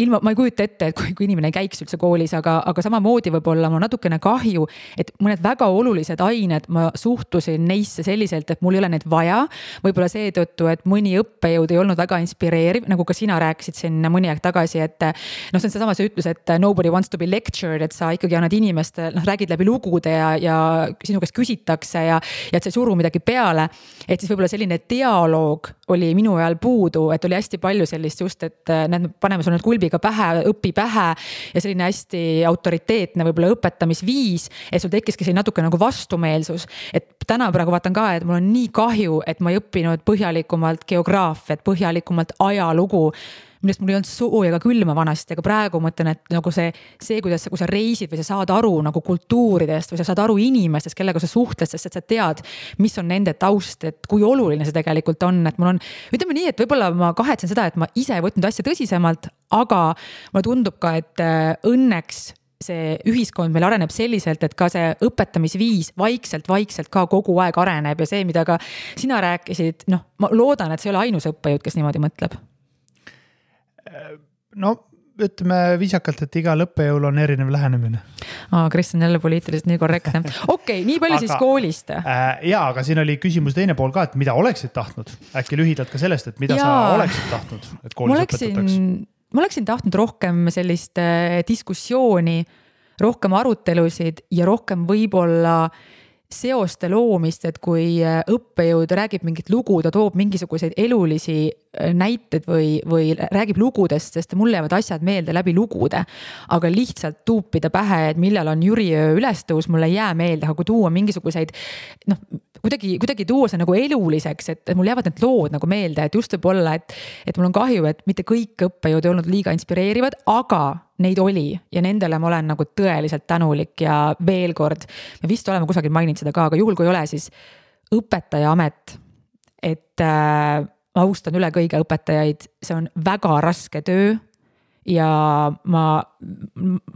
ma ei kujuta ette, et kui inimene ei käiks üldse koolis, aga samamoodi võib-olla mul natukene kahju, et mõned väga olulised ained, ma suhtusin neisse selliselt, et mul ei ole need vaja. Võib-olla seetõttu, et mõni õppejõud ei olnud väga inspireeriv, nagu ka sina rääkisid siin mõni aeg tagasi, et see on seesama see ütlus, et nobody wants to be lectured, et sa ikkagi annad inimeste, räägid läbi lugude ja sinu käest küsitakse ja et sa ei suru midagi peale. Et siis võib-olla selline dialoog oli minu ajal puudu, et oli hästi palju sellist just, et paneme sul nüüd kulbiga pähe, õpi pähe ja selline hästi autoriteetne võib-olla õpetamisviis, et sul tekkiski selline natuke nagu vastumeelsus. Et täna praegu vaatan ka, et mul on nii kahju, et ma ei õppinud põhjalikumalt geograafiat, põhjalikumalt ajalugu, millest mul ei olnud sooja ka külma vanasti, aga praegu mõtlen, et nagu see, kuidas kui sa reisid või sa saad aru nagu kultuuridest või sa saad aru inimestest, kellega sa suhtled, sest et sa tead, mis on nende taust, et kui oluline see tegelikult on, et mul on, ütleme nii, et võib-olla ma kahetsen seda, et ma ise ei võtnud asja tõsisemalt, aga mulle tundub ka, et õnneks see ühiskond meil areneb selliselt, et ka see õpetamisviis vaikselt ka kogu aeg areneb ja see, mida ka sina rääkisid, ma loodan, et see ei ole ainus õppejõud, kes niimoodi mõtleb. No, ütleme viisakalt, et igal õppejõul on erinev lähenemine. Kristjan jälle poliitiliselt nii korrektne. Okei, nii palju siis koolist. Jaa, aga siin oli küsimus teine pool ka, et mida oleksid tahtnud? Äkki lühidalt ka sellest, et mida sa oleksid tahtnud, et koolis õpetataks? Ma oleksin tahtnud rohkem sellist diskussiooni, rohkem arutelusid ja rohkem võib-olla seoste loomist, et kui õppejõud räägib mingit lugu, ta toob mingisuguseid elulisi näited või räägib lugudest, sest mulle jäävad asjad meelde läbi lugude, aga lihtsalt tuupida pähe, et millal on Jüriöö ülestõus, mulle ei jää meelde, aga kui tuua mingisuguseid kuidagi tuua see nagu eluliseks, et mul jäävad need lood nagu meelde, et just võib-olla, et mul on kahju, et mitte kõik õppejõud ei olnud liiga inspireerivad, aga neid oli ja nendele ma olen nagu tõeliselt tänulik ja veel kord, me vist oleme kusagil maininud seda ka, aga juhul kui ei ole, siis õpetaja amet, et ma austan üle kõige õpetajaid, see on väga raske töö ja ma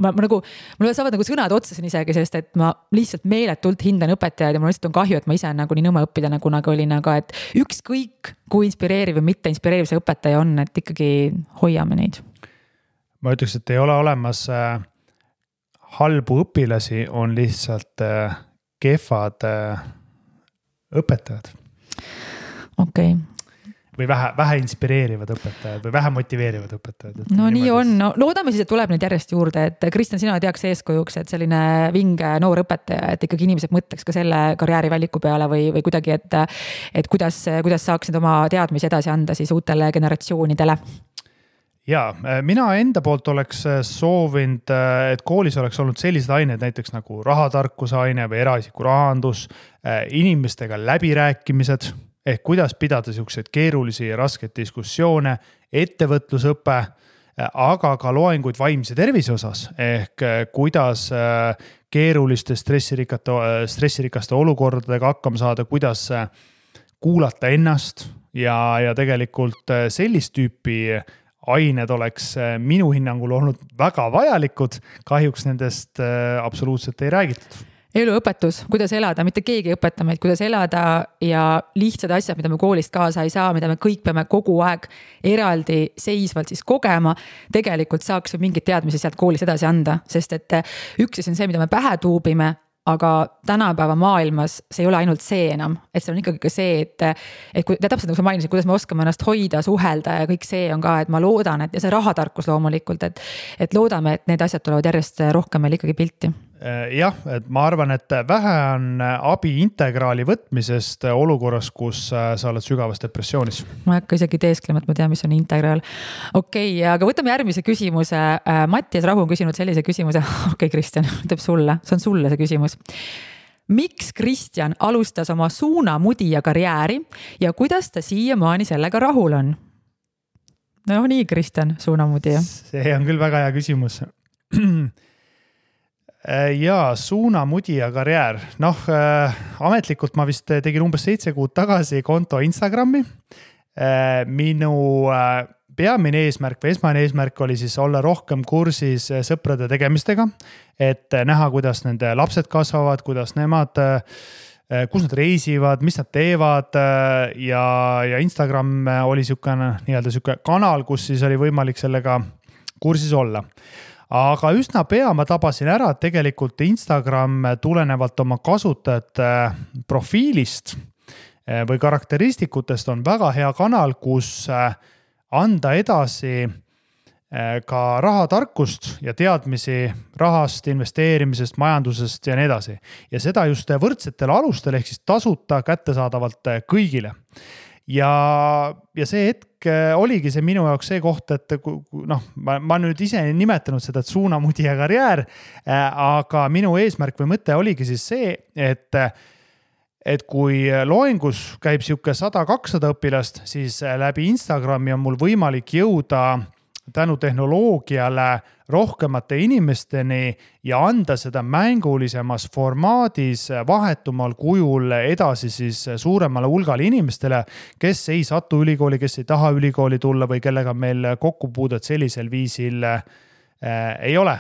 nagu, mul saavad nagu sõnad otsasin isegi, sest et ma lihtsalt meeletult hindan õpetajaid ja mul lihtsalt on kahju, et ma ise nagu nii nõme õppida kunagi olin, aga et ükskõik kui inspireeriv või mitte inspireeriv see õpetaja on, et ikkagi hoiame neid. Ma ütleks, et ei ole olemas halbu õpilasi, on lihtsalt kehvad õpetajad. Okei. Või vähe inspireerivad õpetajad või vähe motiveerivad õpetajad. No nii on, no loodame siis, et tuleb neid järjest juurde, et Kristjan, sina teaks eeskujuks, et selline vinge noor õpetaja, et ikkagi inimesed mõtleks ka selle karjäärivaliku peale või kuidagi, et kuidas saaksid oma teadmisi edasi anda siis uutele generatsioonidele. Ja, mina enda poolt oleks soovinud, et koolis oleks olnud sellised ained näiteks nagu rahatarkuse aine või eraisiku rahandus, inimestega läbirääkimised, ehk kuidas pidada selliseid keerulisi ja raskeid diskussioone, ettevõtlusõpe, aga ka loenguid vaimse tervise osas, ehk kuidas keeruliste stressirikaste olukordadega hakkama saada, kuidas kuulata ennast ja tegelikult sellist tüüpi ained oleks minu hinnangul olnud väga vajalikud, kahjuks nendest absoluutselt ei räägitud. Eluõpetus, kuidas elada, mitte keegi ei õpeta meid, kuidas elada ja lihtsad asjad, mida me koolist kaasa ei saa, mida me kõik peame kogu aeg eraldi seisvalt siis kogema, tegelikult saaks mingid teadmisi sealt koolist edasi anda, sest et üks on see, mida me pähe tuubime, aga tänapäeva maailmas see ei ole ainult see enam, et see on ikkagi ka see, et kui täpselt nagu sa mainisid, kuidas me oskame ennast hoida, suhelda ja kõik see on ka, et ma loodan, et ja see rahatarkus loomulikult, et loodame, et need asjad tulevad järjest rohkem meil ikkagi pilti. Jah, et ma arvan, et vähe on abi integraali võtmisest olukorras, kus sa oled sügavas depressioonis. Ma ei hakka isegi teesklema, et ma tean, mis on integraal. Okei, aga võtame järgmise küsimuse. Mattias Rahu on küsinud sellise küsimuse. Okei, Kristjan, ütleb sulle. See on sulle see küsimus. Miks Kristjan alustas oma suunamudija karjääri ja kuidas ta siiamaani sellega rahul on? No nii, Kristjan, suunamudija. See on küll väga hea küsimus. Ja suunamudija karjäär. Ametlikult ma vist tegin umbes 7 kuud tagasi konto Instagrami. Minu peamine eesmärk või esmane eesmärk oli siis olla rohkem kursis sõprade tegemistega, et näha, kuidas nende lapsed kasvavad, kuidas nemad, kus nad reisivad, mis nad teevad ja Instagram oli niisugune kanal, kus siis oli võimalik sellega kursis olla. Aga üsna pea ma tabasin ära, et tegelikult Instagram tulenevalt oma kasutajate profiilist või karakteristikutest on väga hea kanal, kus anda edasi ka rahatarkust ja teadmisi rahast, investeerimisest, majandusest ja nii edasi. Ja seda just võrdsetel alustel ehk siis tasuta kättesaadavalt kõigile. Ja see hetk oligi see minu jaoks see koht, et ma nüüd ise nimetanud seda suunamudija karjäär, aga minu eesmärk või mõte oligi siis see, et kui loengus käib siuke 100-200 õpilast, siis läbi Instagrami on mul võimalik jõuda tänu tehnoloogiale rohkemate inimesteni ja anda seda mängulisemas formaadis vahetumal kujul edasi siis suuremale hulgale inimestele, kes ei satu ülikooli, kes ei taha ülikooli tulla või kellega meil kokkupuudet sellisel viisil ei ole.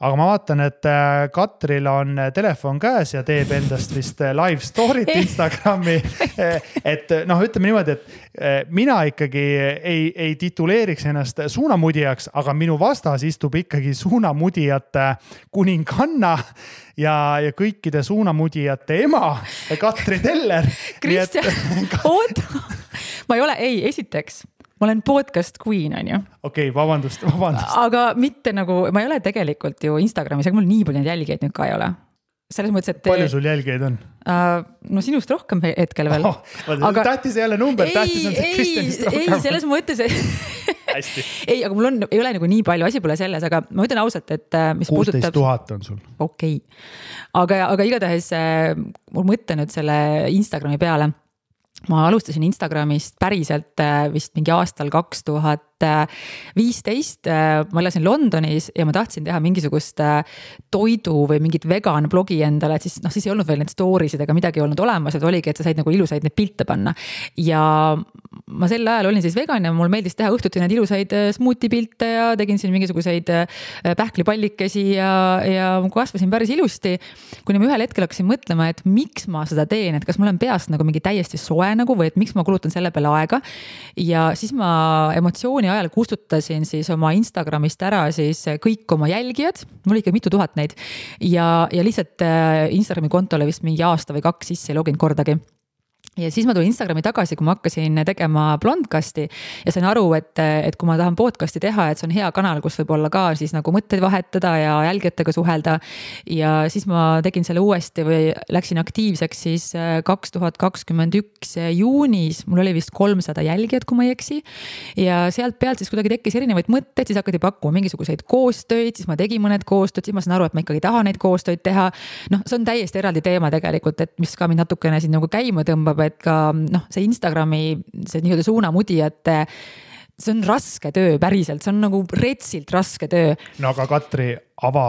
Aga ma vaatan, et Katril on telefon käes ja teeb endast vist live story't Instagrami. Et ütleme niimoodi, et mina ikkagi ei tituleeriks ennast suunamudijaks, aga minu vastas istub ikkagi suunamudijate kuninganna ja kõikide suunamudijate ema, Katri Teller. Kristjan, oota. Ma ei ole, esiteks. Ma olen podcast queen, on ju. Okei, vabandust. Aga mitte nagu, ma ei ole tegelikult ju Instagramis, aga mul nii palju jälgijaid nüüd ka ei ole. Selles mõttes, et... Palju sul jälgijaid on? No sinust rohkem hetkel veel. Tähtis ei ole number, tähtis on see Kristjanist rohkem. Ei, selles mõttes, ei, aga mul ei ole nagu nii palju, asi pole selles, aga ma ütlen ausalt, et mis 16 000 on sul. Okei. Aga igatahes mul mõtte nüüd selle Instagrami peale. Ma alustasin Instagramist päriselt vist mingi aastal 2015. Ma elasin Londonis ja ma tahtsin teha mingisugust toidu või mingit vegan blogi endale, et siis ei olnud veel need stories'id ega midagi olnud olemas, et oligi, et sa said nagu ilusaid neid pilte panna. Ja ma sel ajal olin siis vegan ja mul meeldis teha õhtuti neid ilusaid smoothie pilte ja tegin siin mingisuguseid pähklipallikesi ja kasvasin päris ilusti. Kuni ma ühel hetkel hakkasin mõtlema, et miks ma seda teen, et kas mul on peast nagu mingi täiesti soe nagu või et miks ma kulutan selle peale aega. Ja siis ma emotsiooni ajal kustutasin siis oma Instagramist ära siis kõik oma jälgijad, mul ikka mitu tuhat neid ja lihtsalt Instagrami kontole vist mingi aasta või 2 sisse ei loginud kordagi. Ja siis ma tulin Instagrami tagasi, kui ma hakkasin tegema Blondcasti ja sain aru, et kui ma tahan podcasti teha, et see on hea kanal, kus võib olla ka siis nagu mõtteid vahetada ja jälgijatega suhelda. Ja siis ma tegin selle uuesti või läksin aktiivseks siis 2021 juunis, mul oli vist 300 jälgijat, kui ma ei eksi. Ja sealt pealt siis kuidagi tekkis erinevaid mõtteid, siis hakati pakkuma mingisuguseid koostöid, siis ma tegin mõned koostöid, siis ma sain aru, et ma ikkagi tahan neid koostöid teha. See on täiesti eraldi teema tegelikult, et mis ka mind natukene siin nagu käima tõmbab, et ka see Instagrami, see nii-öelda suunamudijate, see on raske töö päriselt, see on nagu retsilt raske töö. No aga Katri, ava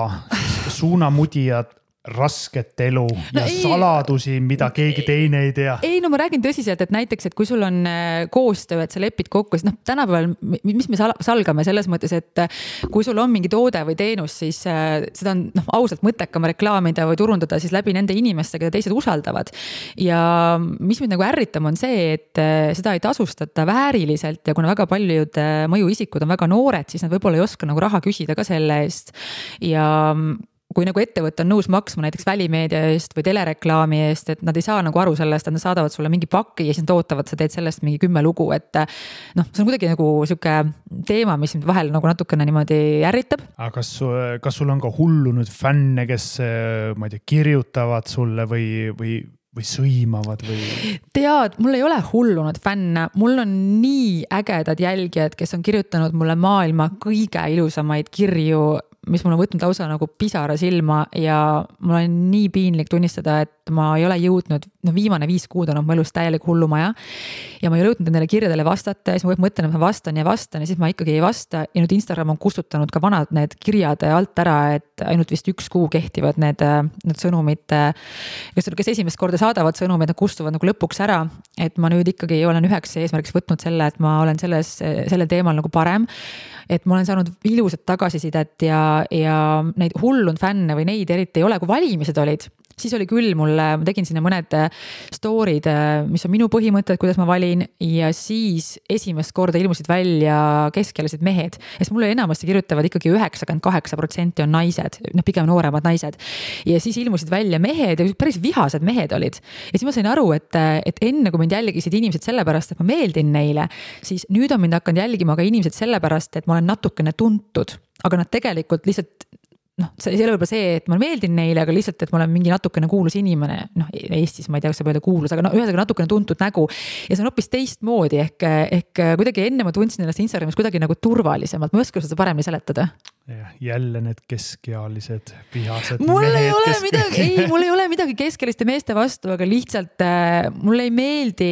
suunamudijad, rasket elu ja saladusi, mida keegi teine ei tea. Ei, no ma räägin tõsiselt, et näiteks, et kui sul on koostöö, et sa lepid kokku, siis tänapäeval, mis me salgame selles mõttes, et kui sul on mingi toode või teenus, siis seda on ausalt mõttekam reklaamida või turundada siis läbi nende inimestega, keda teised usaldavad. Ja mis mind nagu ärritam on see, et seda ei tasustata vääriliselt ja kuna väga paljud mõjuisikud on väga noored, siis nad võib-olla ei oska nagu raha küsida ka selle eest. Ja kui nagu ettevõte on nõus maksma näiteks välimeedia eest või telereklaami eest, et nad ei saa nagu aru sellest, et nad saadavad sulle mingi paki ja siis nad ootavad, sa teed sellest mingi 10 lugu, et see on kuidagi nagu siuke teema, mis vahel nagu natukene niimoodi ärritab. Aga kas sul on ka hullunud fänne, kes ma ei tea, kirjutavad sulle või sõimavad või? Tead, mul ei ole hullunud fänne, mul on nii ägedad jälgijad, kes on kirjutanud mulle maailma kõige ilusamaid kirju, mis mul on võtnud lausa nagu pisara silma ja mul on nii piinlik tunnistada, et ma ei ole jõudnud, viimane 5 kuud on mu elus täielik hullumaja ja ma ei ole jõudnud nendele kirjadele vastata ja siis ma mõtlen, et ma vastan ja siis ma ikkagi ei vasta ja nüüd Instagram on kustutanud ka vanad need kirjad alt ära, et ainult vist 1 kuu kehtivad need sõnumid, kes esimest korda saadavad sõnumid, nad kustuvad nagu lõpuks ära, et ma nüüd ikkagi olen üheks eesmärgiks võtnud selle, et ma olen selle teemal nagu parem, et ma olen saanud ilusat tagasisidet ja neid hullund fänne või neid eriti ei ole, kui valimised olid. Siis oli küll ma tegin sinna mõned story'd, mis on minu põhimõtted, kuidas ma valin ja siis esimest korda ilmusid välja keskealised mehed. Ja mulle enamasti kirjutavad ikkagi 98% on naised, pigem nooremad naised. Ja siis ilmusid välja mehed ja päris vihased mehed olid. Ja siis ma sain aru, et enne kui mind jälgisid inimesed sellepärast, et ma meeldin neile, siis nüüd on mind hakanud jälgima ka inimesed sellepärast, et ma olen natukene tuntud, aga nad tegelikult lihtsalt see ei ole võib-olla see, et ma meeldin neile, aga lihtsalt, et ma olen mingi natukene kuulus inimene, Eestis ma ei tea, kas saab öelda kuulus, aga ühesõnaga natukene tuntud nägu ja see on hoopis teistmoodi ehk kuidagi enne ma tundsin ennast Instagramis kuidagi nagu turvalisemalt, ma ei oska seda paremini seletada. Jälle need keskealised vihased mul ei ole midagi keskeliste meeste vastu, aga lihtsalt mulle ei meeldi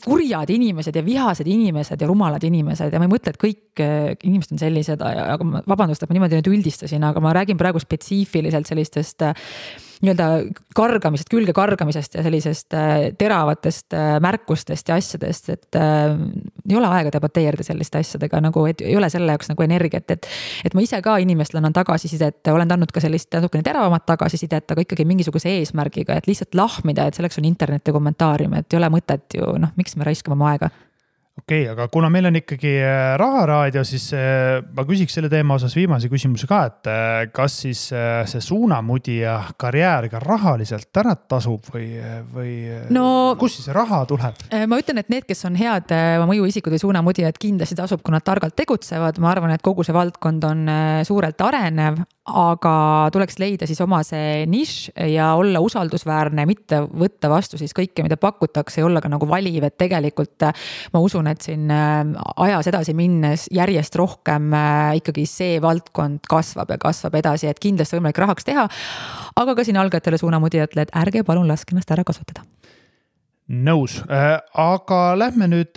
kurjad inimesed ja vihased inimesed ja rumalad inimesed ja ma ei mõtle, et kõik inimesed on sellised, aga vabandust, et ma niimoodi nüüd üldistasin, aga ma räägin praegu spetsiifiliselt sellistest nii-öelda külge kargamisest ja sellisest teravatest märkustest ja asjadest, et ei ole aega debateerida selliste asjadega, nagu et ei ole selle jaoks nagu energiat, et ma ise ka inimestele annan tagasisidet, olen andnud ka sellist natukene teravamat tagasisidet, aga ikkagi mingisuguse eesmärgiga, et lihtsalt lahmida, et selleks on internet ja kommentaarium, et ei ole mõtet ju, miks me raiskame oma aega. Okei, aga kuna meil on ikkagi Raharaadio, siis ma küsiks selle teema osas viimase küsimuse ka, et kas siis see suunamudija karjäär ka rahaliselt ära tasub või kus siis raha tuleb? Ma ütlen, et need, kes on head mõjuisikud või suunamudijad, kindlasti tasub, kui nad targalt tegutsevad. Ma arvan, et kogu see valdkond on suurelt arenev, aga tuleks leida siis oma see nišš ja olla usaldusväärne, mitte võtta vastu siis kõike, mida pakutakse ja olla ka nagu valiv, et tegelikult ma usun, usun, et siin ajas edasi minnes järjest rohkem ikkagi see valdkond kasvab ja kasvab edasi, et kindlasti võimalik rahaks teha, aga ka siin algajatele suunamudijatele, et ärge palun laske ennast ära kasutada. Nõus, aga lähme nüüd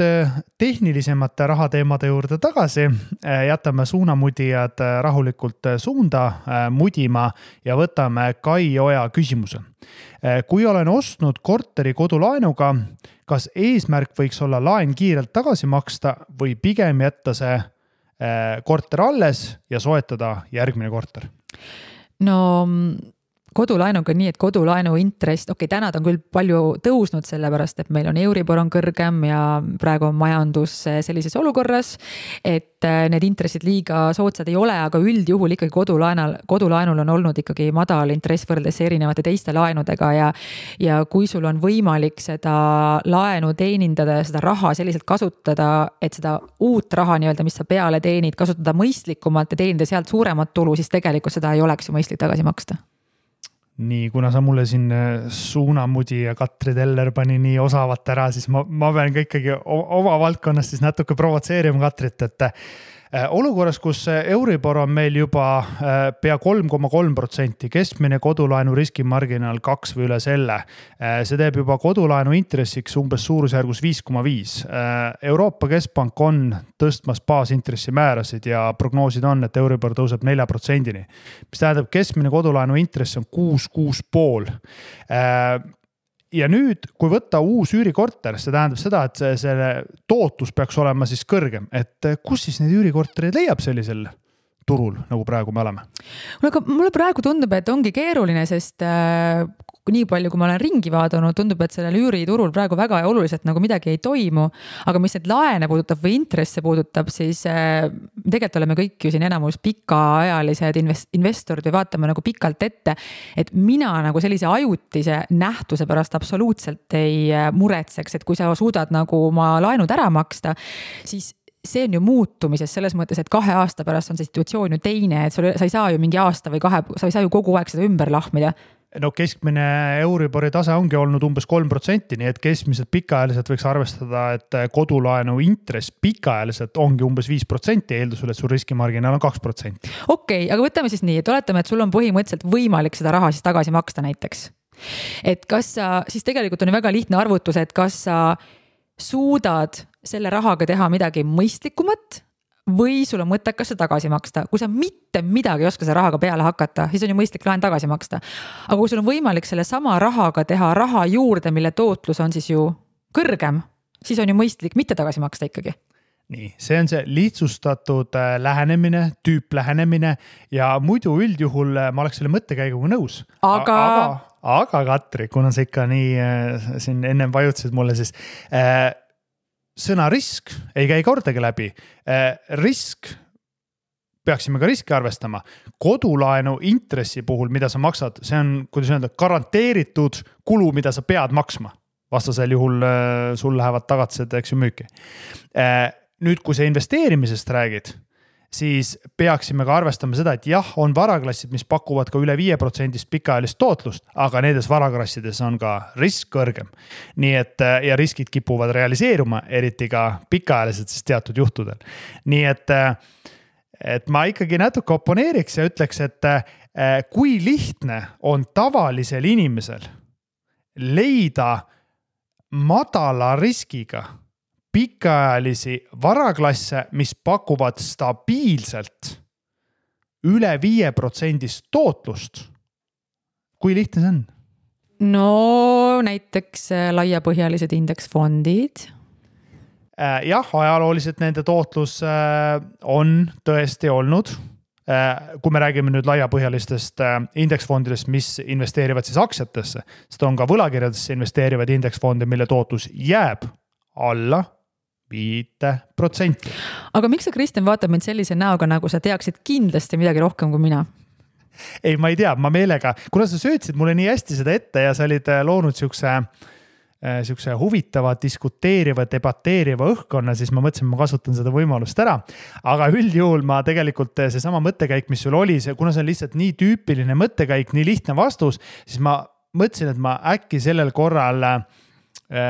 tehnilisemate rahateemade juurde tagasi, jätame suunamudijad rahulikult suunda mudima ja võtame Kai Oja küsimuse. Kui olen ostnud korteri kodulaenuga, kas eesmärk võiks olla laen kiirelt tagasi maksta või pigem jätta see korter alles ja soetada järgmine korter? No kodulaenuga nii, et kodulaenu intress, täna ta on küll palju tõusnud sellepärast, et meil on Euribor on kõrgem ja praegu on majandus sellises olukorras, et need intressid liiga soodsad ei ole, aga üldjuhul ikkagi kodulaenul on olnud ikkagi madal intress võrreldes erinevate teiste laenudega ja kui sul on võimalik seda laenu teenindada ja seda raha selliselt kasutada, et seda uut raha nii-öelda, mis sa peale teenid, kasutada mõistlikumalt ja teenida sealt suuremat tulu, siis tegelikult seda ei oleks ju mõistlik tagasi maksta. Nii, kuna sa mulle siin suunamudi ja Katri Teller pani nii osavat ära, siis ma pean ka ikkagi oma valdkonnast siis natuke provotseerima Katrit, et olukorras, kus Euribor on meil juba pea 3,3%, keskmine kodulaenu riskimarginaal 2 või üle selle, see teeb juba kodulaenu intressiks umbes suurusjärgus 5,5. Euroopa Keskpank on tõstmas baasintressi määrasid ja prognoosid on, et Euribor tõuseb 4%-ni, mis tähendab keskmine kodulaenu intress on 6,5. Ja nüüd, kui võtta uus üürikorter, see tähendab seda, et selle tootlus peaks olema siis kõrgem, et kus siis need üürikorterid leiab sellisel turul, nagu praegu me oleme? Mulle praegu tundub, et ongi keeruline, sest nii palju, kui ma olen ringi vaadanud, tundub, et sellel üüriturul praegu väga oluliselt nagu midagi ei toimu, aga mis need laene puudutab või intresse puudutab, siis tegelikult oleme kõik ju siin enamus pikaajalised investorid või vaatame nagu pikalt ette, et mina nagu sellise ajutise nähtuse pärast absoluutselt ei muretseks, et kui sa suudad nagu oma laenud ära maksta, siis see on ju muutumises selles mõttes, et 2 aasta pärast on see situatsioon ju teine, et sa ei saa ju mingi aasta või 2, sa ei saa ju kogu aeg seda ümber lahmida. No keskmine Euribori tase ongi olnud umbes 3%, nii et keskmiselt pikaajaliselt võiks arvestada, et kodulaenu intress pikaajaliselt ongi umbes 5%, eeldusel, et sul riskimarginaal on 2%. Okei, aga võtame siis nii, et oletame, et sul on põhimõtteliselt võimalik seda raha siis tagasi maksta näiteks. Et kas sa, siis tegelikult on väga lihtne arvutus, et kas sa suudad selle rahaga teha midagi mõistlikumat või sul on mõttekas see tagasi maksta. Kui sa mitte midagi ei oska selle rahaga peale hakata, siis on ju mõistlik laen tagasi maksta. Aga kui sul on võimalik selle sama rahaga teha raha juurde, mille tootlus on siis ju kõrgem, siis on ju mõistlik mitte tagasi maksta ikkagi. Nii, see on see lihtsustatud lähenemine, tüüplähenemine ja muidu üldjuhul ma oleks selle mõttekäiguga nõus. Aga Katri, kuna sa ikka nii siin ennem vajutasid mulle, siis sõna risk ei käi kordagi läbi. Risk, peaksime ka riski arvestama. Kodulaenu intressi puhul, mida sa maksad, see on, kuidas öelda, garanteeritud kulu, mida sa pead maksma. Vastasel juhul sul lähevad tagatised, eks ju, müüki. Nüüd, kui sa investeerimisest räägid, siis peaksime ka arvestama seda, et jah, on varaklassid, mis pakuvad ka üle 5% pikaajalist tootlust, aga nendes varaklassides on ka risk kõrgem. Nii et, ja riskid kipuvad realiseeruma, eriti ka pikaajaliselt siis teatud juhtudel. Nii et ma ikkagi natuke oponeeriks ja ütleks, et kui lihtne on tavalisel inimesel leida madala riskiga pikaajalisi varaklasse, mis pakuvad stabiilselt üle 5% tootlust. Kui lihtne see on? No näiteks laiapõhjalised indeksfondid. Jah, ajalooliselt nende tootlus on tõesti olnud. Kui me räägime nüüd laiapõhjalistest indeksfondidest, mis investeerivad siis aktsiatesse, sest on ka võlakirjadesse investeerivad indeksfonde, mille tootlus jääb alla 5%. Aga miks sa, Kristjan, vaatad mind sellise näoga, nagu sa teaksid kindlasti midagi rohkem kui mina? Ei, ma ei tea, ma meelega, kuna sa söötsid mulle nii hästi seda ette ja sa olid loonud siukse huvitava, diskuteeriva, debateeriva õhkkonna, siis ma mõtlesin, ma kasutan seda võimalust ära. Aga üldjuhul ma tegelikult see sama mõttekäik, mis sul oli, kuna see on lihtsalt nii tüüpiline mõttekäik, nii lihtne vastus, siis ma mõtlesin, et ma äkki sellel korral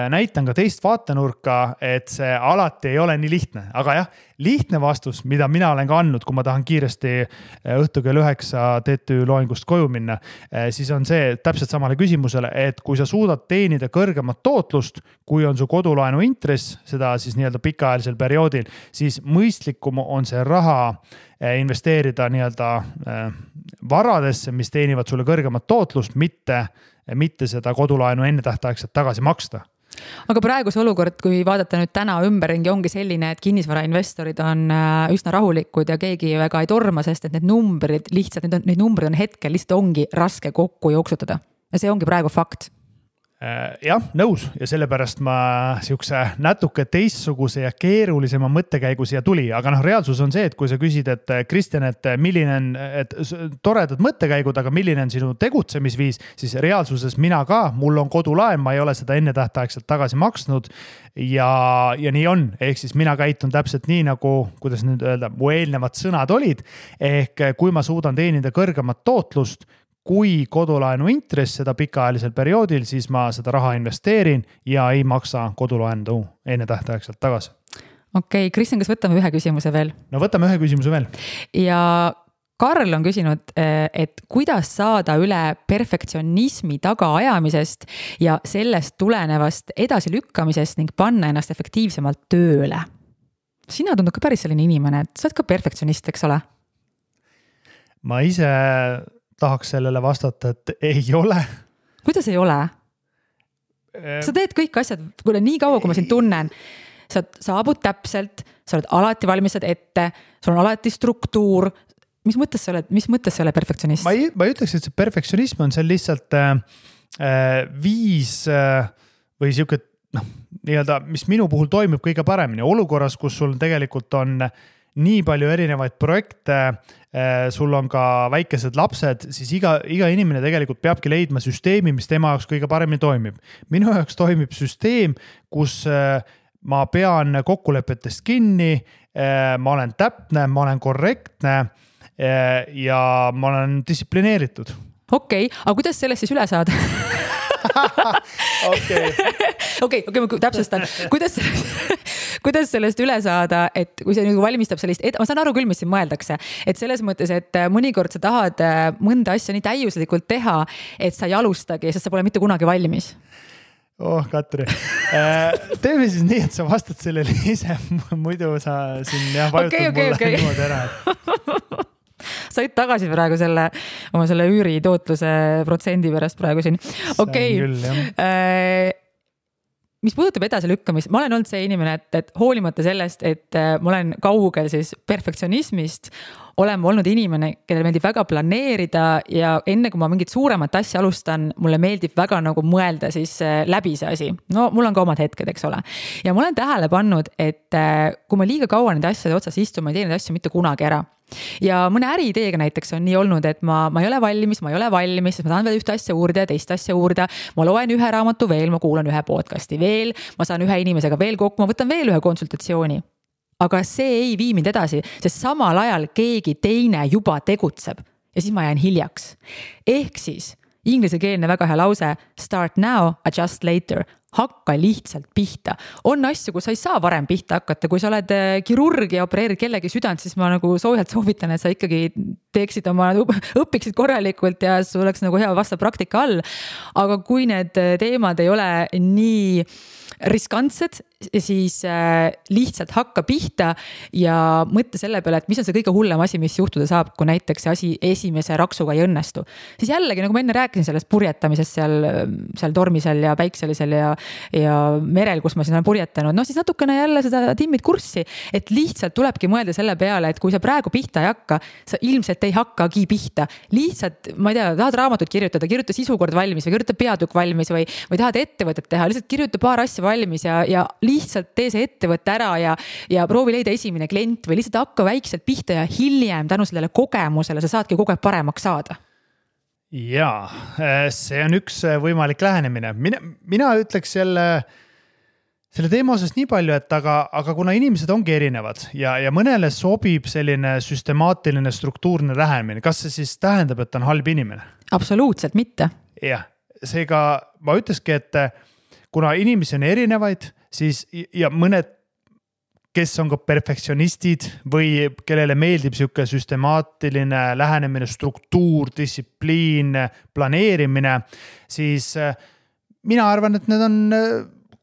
näitan ka teist vaatenurka, et see alati ei ole nii lihtne, aga jah, lihtne vastus, mida mina olen ka andnud, kui ma tahan kiiresti õhtu kell 9 TTÜ loengust koju minna, siis on see täpselt samale küsimusele, et kui sa suudad teenida kõrgemat tootlust, kui on su kodulaenu intress, seda siis nii-öelda pikaajalisel perioodil, siis mõistlikum on see raha investeerida nii-öelda varadesse, mis teenivad sulle kõrgemat tootlust, mitte seda kodulaenu ennetähtaegselt tagasi maksta. Aga praeguse olukord, kui vaadata nüüd täna ümberringi, ongi selline, et kinnisvarainvestorid on üsna rahulikud ja keegi väga ei torma, sest et need numbrid on hetkel lihtsalt ongi raske kokku jooksutada. Ja see ongi praegu fakt. Jah, nõus ja sellepärast ma siukse natuke teistsuguse ja keerulisema mõttekäigu siia tuli, aga reaalsus on see, et kui sa küsid, et Kristjan, et milline on toredad mõttekäigud, aga milline on sinu tegutsemisviis, siis reaalsuses mina ka, mul on kodulaen, ma ei ole seda ennetähtaegselt tagasi maksnud ja nii on, ehk siis mina käitun täpselt nii nagu, kuidas nüüd öelda, mu eelnevad sõnad olid, ehk kui ma suudan teenida kõrgemat tootlust, kui kodulaenu intress seda pikaajalisel perioodil, siis ma seda raha investeerin ja ei maksa kodulaenu enne tähtaegselt tagasi. Okei, Kristjan, kas võtame ühe küsimuse veel? No võtame ühe küsimuse veel. Ja Karl on küsinud, et kuidas saada üle perfektsionismi tagaajamisest ja sellest tulenevast edasilükkamisest ning panna ennast efektiivsemalt tööle. Sina tundub ka päris selline inimene, et sa oled ka perfektsionist, eks ole? Ma ise tahaks sellele vastata, et ei ole. Kuidas ei ole? Sa teed kõik asjad, kuule nii kaua, kui ma sind tunnen, sa saabud täpselt, sa oled alati valmistad ette, sul on alati struktuur. Mis mõttes sa oled perfektsionist? Ma ei ütleks, et see perfektsionism on see lihtsalt viis või siuke, nii-öelda, mis minu puhul toimib kõige paremini. Olukorras, kus sul tegelikult on nii palju erinevaid projekte, sul on ka väikesed lapsed, siis iga inimene tegelikult peabki leidma süsteemi, mis tema jaoks kõige paremini toimib. Minu jaoks toimib süsteem, kus ma pean kokkulepetest kinni, ma olen täpne, ma olen korrektne ja ma olen distsiplineeritud. Okei, aga kuidas sellest siis üle saada? Okei, ma täpsustan. Kuidas sellest üle saada, et kui see valmistab sellist, ma saan aru küll, mis siin mõeldakse, et selles mõttes, et mõnikord sa tahad mõnda asja nii täiuslikult teha, et sa ei alustagi, sest sa pole mitte kunagi valmis. Katri, teeme siis nii, et sa vastad sellele ise, muidu sa siin vajutad mulle niimoodi ära. Said tagasi praegu oma selle üüri tootluse protsendi pärast praegu siin. Okei. Mis puudutab edasilükkamist, ma olen olnud see inimene, et hoolimata sellest, et ma olen kaugel siis perfektsionismist, olen olnud inimene, kellel meeldib väga planeerida ja enne kui ma mingit suuremat asja alustan, mulle meeldib väga nagu mõelda siis läbi see asi. No mul on ka omad hetked, eks ole. Ja ma olen tähele pannud, et kui ma liiga kaua neid asjade otsas istun, ma ei tee neid asju mitte kunagi ära. Ja mõne äriideega näiteks on nii olnud, et ma ei ole valmis, sest ma tahan veel ühte asja uurida ja teist asja uurida. Ma loen ühe raamatu veel, ma kuulan ühe podcasti veel, ma saan ühe inimesega veel kokku, ma võtan veel ühe konsultatsiooni. Aga see ei vii mind edasi, sest samal ajal keegi teine juba tegutseb ja siis ma jään hiljaks. Ehk siis ingliskeelne väga hea lause, start now, adjust later. Hakka lihtsalt pihta. On asju, kus sa ei saa varem pihta hakata. Kui sa oled kirurg ja opereerid kellegi südant, siis ma nagu soojalt soovitan, et sa ikkagi teeksid õpiksid korralikult ja sul oleks nagu hea vastav praktika all. Aga kui need teemad ei ole nii riskantsed, siis lihtsalt hakka pihta ja mõtle selle peale, et mis on see kõige hullem asi, mis juhtuda saab, kui näiteks see asi esimese raksuga ei õnnestu. Siis jällegi, nagu ma enne rääkisin sellest purjetamisest seal tormisel ja päikselisel ja merel, kus ma siin olen purjetanud, siis natukene jälle seda timmid kurssi, et lihtsalt tulebki mõelda selle peale, et kui sa praegu pihta ei hakka, sa ilmselt ei hakkagi pihta. Lihtsalt, ma ei tea, tahad raamatut kirjuta sisukord valmis või kirjuta peatükk valmis või tahad ettevõtet teha, lihtsalt kirjuta paar asja valmis ja lihtsalt tee see ettevõtte ära ja proovi leida esimene klient või lihtsalt hakka väikselt pihta ja hiljem tänu sellele kogemusele sa saadki kogu aeg paremaks saada. Jaa, see on üks võimalik lähenemine. Mina ütleks selle teema osas nii palju, et aga kuna inimesed ongi erinevad ja mõnele sobib selline süstemaatiline struktuurne lähenemine, kas see siis tähendab, et on halb inimene? Absoluutselt mitte. Jah, seega ma ütleski, et kuna inimesi on erinevaid, siis ja mõned, kes on ka perfektsionistid või kellele meeldib sihuke süstemaatiline lähenemine, struktuur, distsipliin, planeerimine, siis mina arvan, et need on,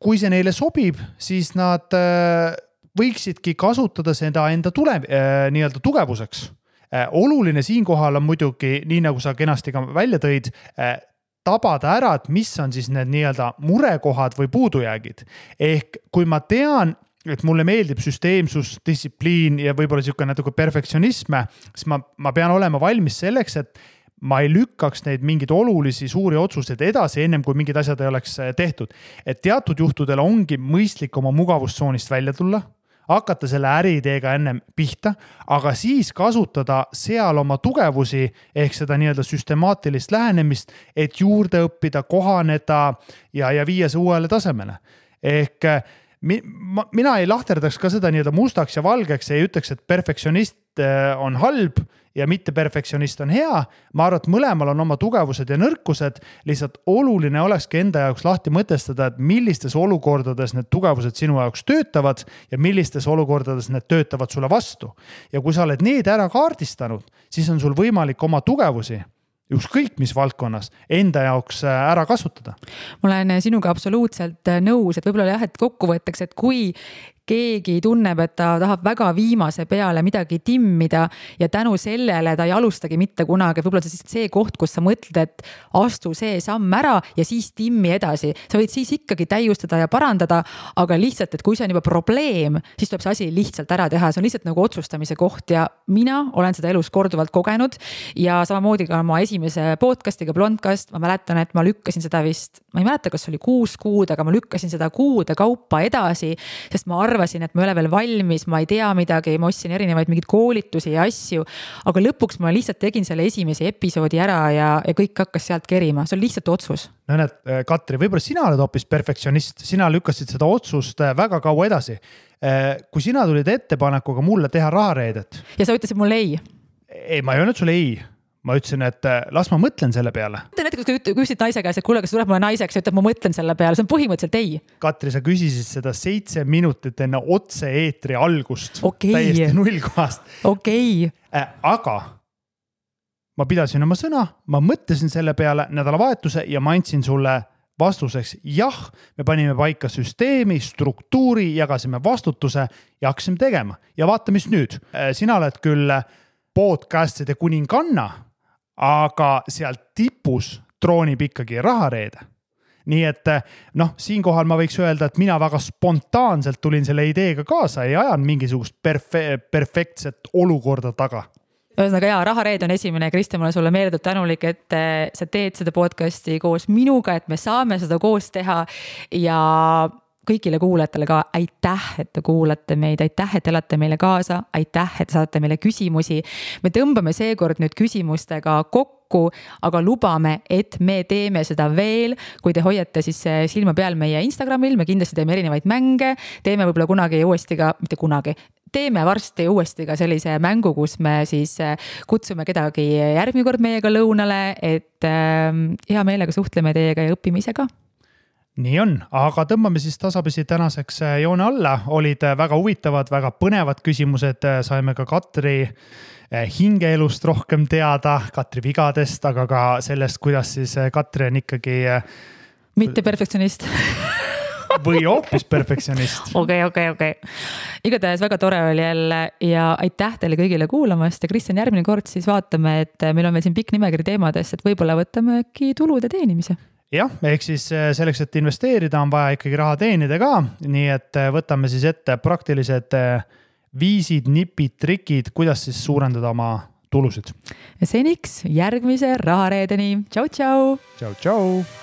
kui see neile sobib, siis nad võiksidki kasutada seda enda nii-öelda tugevuseks. Oluline siinkohal on muidugi, nii nagu sa kenasti ka välja tõid, tabada ära, et mis on siis need nii-öelda murekohad või puudujäägid. Ehk kui ma tean, et mulle meeldib süsteemsus, distsipliin ja võib-olla sihuke natuke perfektsionisme, siis ma pean olema valmis selleks, et ma ei lükkaks neid mingeid olulisi suuri otsuseid edasi, ennem kui mingid asjad ei oleks tehtud. Et teatud juhtudel ongi mõistlik oma mugavustsoonist välja tulla, hakata selle äriideega ennem pihta, aga siis kasutada seal oma tugevusi ehk seda nii-öelda süstemaatilist lähenemist, et juurde õppida, kohaneda ja viia see uuele tasemele. Ehk mina ei lahterdaks ka seda nii-öelda mustaks ja valgeks ja ei ütleks, et perfektsionist on halb ja mitte perfektsionist on hea. Ma arvan, et mõlemal on oma tugevused ja nõrkused. Lihtsalt oluline olekski enda jaoks lahti mõtestada, et millistes olukordades need tugevused sinu jaoks töötavad ja millistes olukordades need töötavad sulle vastu. Ja kui sa oled need ära kaardistanud, siis on sul võimalik oma tugevusi ükskõik mis valdkonnas enda jaoks ära kasutada. Ma olen sinuga absoluutselt nõus, et võib-olla jah, et kokkuvõtteks, et kui keegi tunneb, et ta tahab väga viimase peale midagi timmida ja tänu sellele ta ei alustagi mitte kunagi. Võib-olla see koht, kus sa mõtled, et astu see samm ära ja siis timmi edasi. Sa võid siis ikkagi täiustada ja parandada, aga lihtsalt, et kui see on juba probleem, siis tuleb see asi lihtsalt ära teha. See on lihtsalt nagu otsustamise koht ja mina olen seda elus korduvalt kogenud ja samamoodi ka oma esimese podcastiga Blondcast. Ma mäletan, et ma lükkasin seda vist, ma ei mäleta, kas oli 6 kuud, aga ma lükkasin seda kuude kaupa edasi, sest ma arvasin, et ma ei ole veel valmis, ma ei tea midagi, ma ostsin erinevaid mingeid koolitusi ja asju, aga lõpuks ma lihtsalt tegin selle esimese episoodi ära ja kõik hakkas sealt kerima. See on lihtsalt otsus. No näed, Katri, võib-olla sina oled hoopis perfektsionist, sina lükkasid seda otsust väga kaua edasi. Kui sina tulid ettepanekuga mulle teha rahareedet. Ja sa ütlesid mulle ei. Ei, ma ei öelnud sulle ei. Ma ütlesin, et las ma mõtlen selle peale. Näiteks, kui küsisid naise käes, et kuule, kas tuleb mulle naiseks, ütleb, ma mõtlen selle peale. See on põhimõtteliselt ei. Katri, sa küsisid seda 7 minutit enne otse eetri algust. Täiesti nullkohast. Okei. Aga ma pidasin oma sõna, ma mõtlesin selle peale nädalavahetuse ja ma andsin sulle vastuseks. Jah, me panime paika süsteemi, struktuuri, jagasime vastutuse ja hakkasime tegema. Ja vaata, mis nüüd. Sina oled küll podcastide kuninganna, aga sealt tipus troonib ikkagi rahareede. Nii et siinkohal ma võiks öelda, et mina väga spontaanselt tulin selle ideega kaasa ja ajan mingisugust perfektset olukorda taga. Ühesõnaga rahareed on esimene. Kristjan, ma olen sulle meeldud tänulik, et sa teed seda podcasti koos minuga, et me saame seda koos teha ja kõigile kuulajatele ka aitäh, et te kuulate meid, aitäh, et elate meile kaasa, aitäh, et saate meile küsimusi. Me tõmbame seekord nüüd küsimustega kokku, aga lubame, et me teeme seda veel. Kui te hoiate siis silma peal meie Instagramil, me kindlasti teeme erinevaid mänge, teeme võib-olla kunagi uuesti ka, mitte kunagi, teeme varsti uuesti ka sellise mängu, kus me siis kutsume kedagi järgmine kord meiega lõunale, et hea meelega suhtleme teiega ja õpime ise ka. Nii on, aga tõmbame siis tasapisi tänaseks joone alla. Olid väga huvitavad, väga põnevad küsimused. Saime ka Katri hingeelust rohkem teada, Katri vigadest, aga ka sellest, kuidas siis Katri on ikkagi mitte perfektsionist. Või hoopis perfektsionist. Okei. Igatahes väga tore oli jälle ja aitäh teile kõigile kuulamast ja Kristjan, järgmine kord siis vaatame, et meil on veel siin pikk nimekiri teemadest, et võib-olla võtame äkki tulude teenimise. Jah, ehk siis selleks, et investeerida, on vaja ikkagi raha teenida ka, nii et võtame siis ette praktilised viisid, nipid, trikid, kuidas siis suurendada oma tulusid. Ja seniks järgmise rahareedeni. Tšau, tšau! Tšau, tšau!